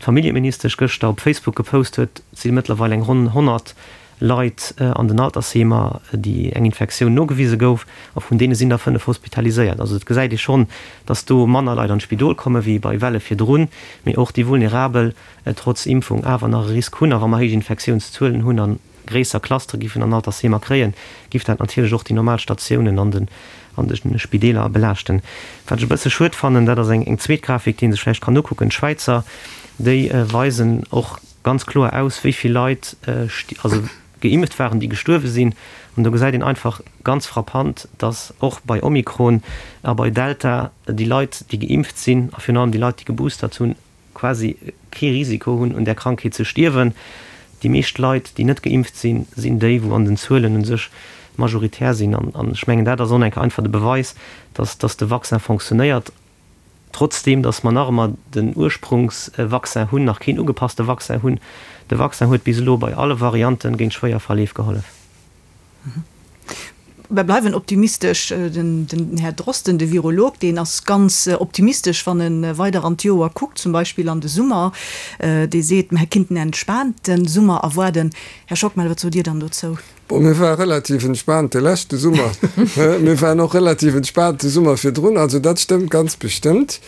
d'Familljeministesch gëschter op Facebook gepost huet, si mëttlerweil eng ronn 100 Leit an den Altersheemer, déi eng Infektioun nogewise gouf, a vun deene sinn der 5 hospitaliséiert. Also et gesäit ee schonn, datt do manner Leit an d'Spidol komme wéi bei Welle virdrun, mee och déi Vulnerabel trotz Impfung awer nach e Risk hunn. A wa mer héich Infektiounszuelen hunn an gréisser Clustere giffen an Altersheemer kréien, giff dat natierlech och déi normal Statiounen an den an de Spideeler belaaschten. Wat ech e bësse schued fannen, dat ass eng eng zweet Grafik, déi ee sech vläicht kann ukucken, D'Schwäizer, déi weisen och ganz kloer aus, wéi vill Leit also geimpft waren, déi gestuerwe sinn. An do gesäit een einfach ganz frappant, dass och bei Omikron a bei Delta déi Leit, déi geimpft sinn a virun allem déi Leit, déi geboostert hunn, quasi kee Risiko hunn un där Krankheet ze stierwen. Déi meescht Leit, déi net geimpft sinn, sinn déi, wou an den Zuelen u sech majoritär sinn. An ech mengen, dat ass och eng einfach de Beweis, dass dass de Vaccin fonctionnéiert, trotzdeem dass mer nach ëmmer den Ursprungsvaccin hunn, nach keen ugepasste Vaccin hunn. De Vaccin huet bis elo bei alle Variante géint schwéier Verleef gehollef. Mer bleiwen optimistesch. Den Här Drosten, de Virolog, deen ass ganz optimistesch, wann e weider an d'Joer kuckt, zum Beispill an de Summer. Dee seet, mer kinnten en entspaante Summer erwaarden. Här Schockmel, wat sot Dir dann dozou? Bon, mir ware relativ entspaant de leschte Summer. Mir waren och relativ entspaant de Summer virdrun. Also dat stëmmt ganz bestëmmt.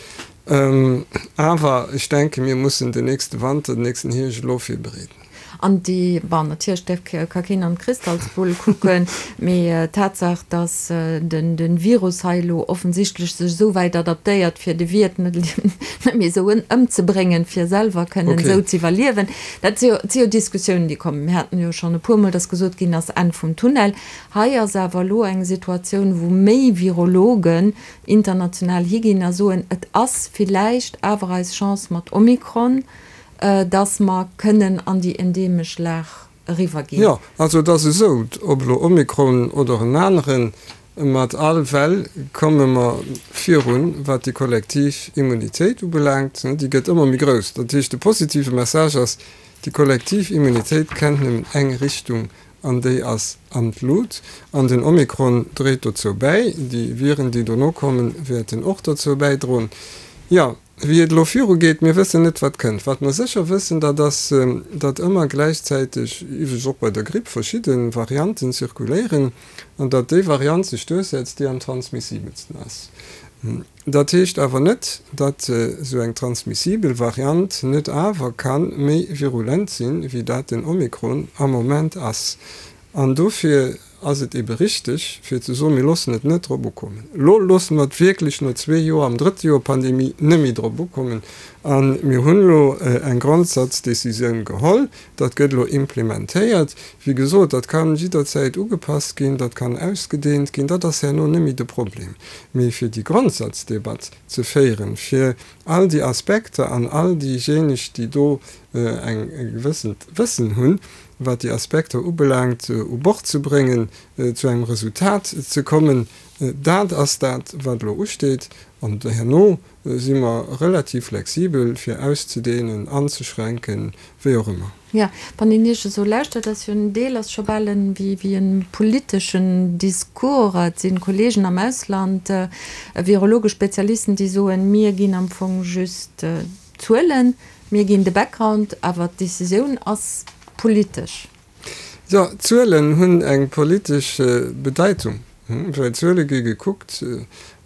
Awer ech denken, mir mussen den nächste Wanter, den nächsten Hierscht elo virbereeden. An déi, bon, natierlech däerf, ka keen an d'Kristallsbull kucken, mee d'Tatsaach, datt den Virus hei elo offensichtlech sech esou wäit adaptéiert, fir de Wiert net méi esou ëmzebréngen, fir selwer kënnen esou ze iwwerliewen, dat si jo, si jo Diskussiounen, déi kommen. Mir haten jo schonn e puermol, datt gesot ginn ass, Enn vum Tunnel. Hei ass awer elo eng Situatioun, wou méi Virologen international higinn a soen, et ass villäicht awer eis Chance mat Omikron, dass mer kënnen an déi endeemesch Lag eriwwerginn. Jo, also et ass esou, ob elo Omikron oder en aneren, mat all Well komme mer virun, wat déi kollektiv Immunitéit ubelaangt. Déi gëtt ëmmer méi grouss. Dat heescht, de positive Message ass, déi kollektiv Immunitéit kennt nëmmen eng Richtung an déi ass an d'Lut. An den Omikron dréit dozou bäi. Déi Viren, déi dono kommen, wäerten och dozou bäidroen. Jo. Wéi et elo virugeet, mir wëssen net, wat kënnt. Wat mer sécher wëssen, dat ass, datt ëmmer gläichzäiteg, iwwregens och bei der Gripp, verschidde Varianten zirkuléieren an datt déi Variant sech duerchsetzt, déi am transmissibelsten ass. Dat heescht awer net, datt esou eng transmissibel Variant net awer ka méi virulent sinn, wéi dat den Omikron am Moment ass. An dofir ass et ebe richteg, fir ze soen, mir loossen et net drop ukommen. Elo loosse mer et wierklech no zwee Joer, am drëtte Joer Pandemie, net méi drop ukommen. A mir hunn elo eng Grondsatzdecisioun geholl. Dat gëtt elo implementéiert. Wéi gesot, dat ka jidderzäit ugepasst ginn, dat kann ausgedeent ginn, dat ass herno net méi de Problem. Mee fir déi Grondsazdebatt ze féieren, fir all déi Aspekter an all déijéineg, déi do eng gewëssent Wëssen hunn, wat déi Aspekter ubelaangt, u Bord ze bréngen, zu engem Resultat ze kommen, dat ass dat, wat elo usteet. An herno si mer relativ flexibel, fir auszudehnen, anzeschränken, wéi och ëmmer. Jo, wann een Iech esou lauschtert, ass jo en Deel ass scho bal en wéi e politeschen Discours. Et si Kollegen am Ausland, virologesch Spezialisten, déi soen, mir ginn am Fong just Zuelen, mir ginn de Background, awer d'Decisioun ass politesch. Jo, d'Zuelen hunn eng politesch Bedeitung, well Zuele gi gekuckt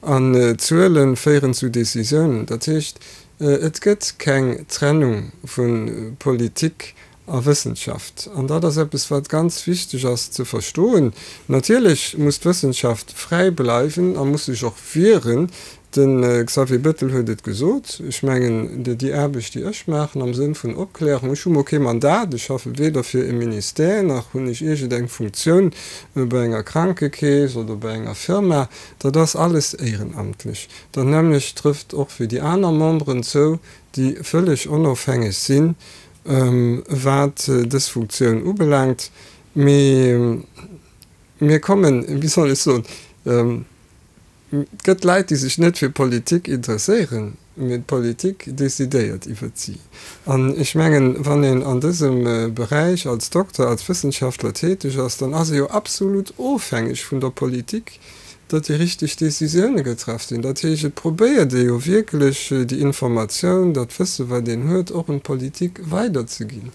an Zuele féieren zu Decisiounen. Dat heescht, et gëtt keng Trennung vu Politik a Wëssenschaft. An dat ass eppes, wat ganz wichteg ass ze verstoen. Natierlech muss d'Wëssenschaft fräi bleiwen a muss sech och wieren. De Xavier Bettel huet et gesot. Ech mengen, déi Aarbecht, déi ech maachen am Sënn vun Opklärung, ech hu mol kee Mandat, ech schaffe weder fir e Ministère nach hunn ech iergendeng Funktioun bei enger Krankekeess oder bei enger Firma, dat ass alles éierenamtlech. Dat nämmlecht trëfft och fir déi aner Memberen zou, déi vëlleg onofhängeg sinn, wat dës Funktioun ubelaangt. Mee mir kommen, wéi soll ech soen, et gëtt Leit, déi sech net fir Politik interesséieren, mee d'Politik decidéiert iwwert si. An ech mengen, wann een an dësem Beräich als Dokter, als Wëssenschaftler täteg ass, dann ass ee jo absolut ofhängeg vun der Politik, datt déi richteg Décisioune getraff sinn. Dat heescht, et probéiert ee jo wierklech déi Informatioun, dat Wësse wat een huet, och un d'Politik weiderzeginn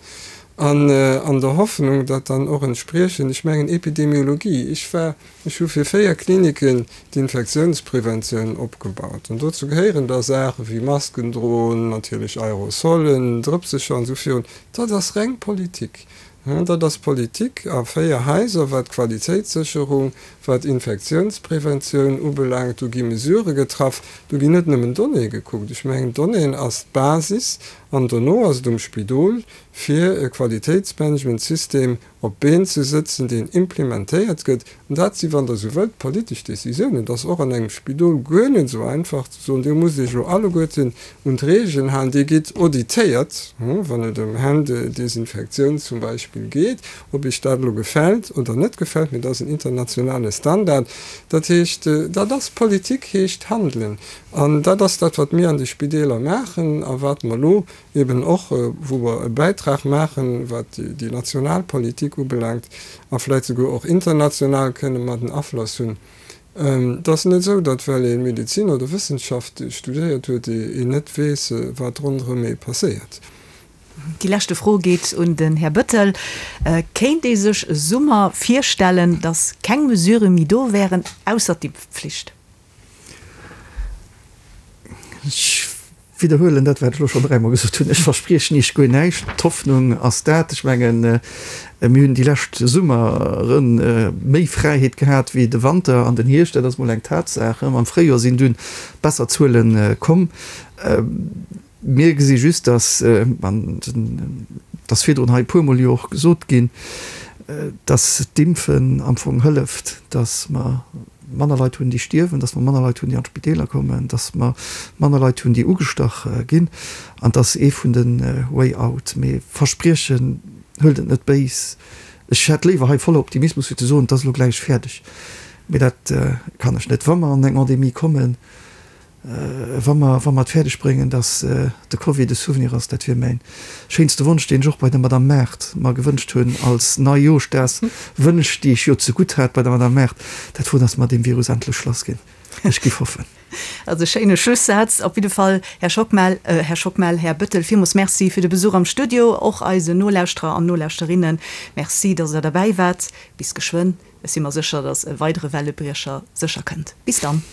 an an der Hoffnung, datt dann och entspriechend, ech mengen Epidemiologie, ech war, ech hu fir 4 Kliniken d'Infektiounspreventioun opgebaut an dozou gehéieren da Saache wéi Masken droen, natierlech Aerosolen, Drëpsecher an esou virun, dat ass reng Politik. Dat ass Politik a 4 Haiser, wat d'Qualitéitssécherung, wat Infektiounspreventioun ubelaangt. Do gi Mesurë getraff, do ginn net nëmmen Donnéeë gekuckt. Ech mengen, Donnéeën ass d'Basis an dono ass et um Spidol, fir e Qualitéitsmanagementsystem op d'Been ze sëtzen, deen implementéiert gëtt. An dat si, wann Der esou wëllt, politesch Décisiounen. Et ass och an engem Spidol guer net esou einfach ze soen, Dir musst Iech elo alleguerten un d'Reegelen halen. Dir gitt auditéiert, wann et ëm Händedesinfektioun zum Beispill geet, ob Iech dat elo gefält oder net gefält, mee dat ass en internationale Standard. Dat heescht, dat ass Politik, heescht handelen. An dat ass dat, wat mir an de Spideeler maachen a wat mer elo eben och, wou mer e Bäitrag maachen, wat déi national Politik ubelaangt, a vläicht souguer och international kënne mer den Afloss hunn. Et ass net esou, datt well ee Medezin oder Wëssenschaft studéiert huet, een net weess, wat ronderëm ee passéiert. Déi leschte Fro geet un den Här Bettel. Kéint ee sech e Summer virstellen, datt keng Mesurë méi do wären, ausser d'Impfpflicht? Ech widderhuelen dat, wat ech elo schonn dräimol gesot hunn, Ech verspriechen Iech guer näischt. D'Hoffnung ass dat. Ech mengen, mir hunn déi lescht Summere méi Fräiheet gehat wéi de Wanter an den Hierscht. Dat ass mol eng Tatsaach. Am Fréijoer sinn dunn besser Zuele komm. Mir gesi just, dass, an et ass virdrun hei e puermol jo och gesot ginn, dass d'Impfen am Fong hëlleft, dass mer manner Leit hunn, déi stierwen, dass mer manner Leit hunn, déi an d'Spideeler kommen, dass mer manner Leit hunn, déi ugestach ginn. An et ass ee vun de Way out. Mee verspriechen, huelt et net béis, ech hätt léiwer hei voller Optimismus, fir ze soen, et ass elo gläich fäerdeg. Mee dat kann ech net. Wa mer an eng Endemie kommen, Wa mer, wa mer et fäerdeg bréngen, dass de Covid e Souvenir ass, dat wier mäin schéinste Wonsch, deen ech och bei der Madame Maart mer gewënscht hunn als Neijooschdagswënsch, déi ech jo zegutt hat bei der Madame Maart, dat wor, dass mer deem Virus endlech lass ginn. Ech giff hoffen. Also e schéine Schlussaz op jidde Fall, Här Schockmel, Här Schockmel, Här Bettel, villmools Merci fir de Besuch am Studio. Och eisen Nolauschterer an Nolauschterinnen Merci, dass Der derbäi waart. Bis geschwënn. Ech si mer sécher, dass e weidere Wellebriecher sécher kënnt. Bis dann.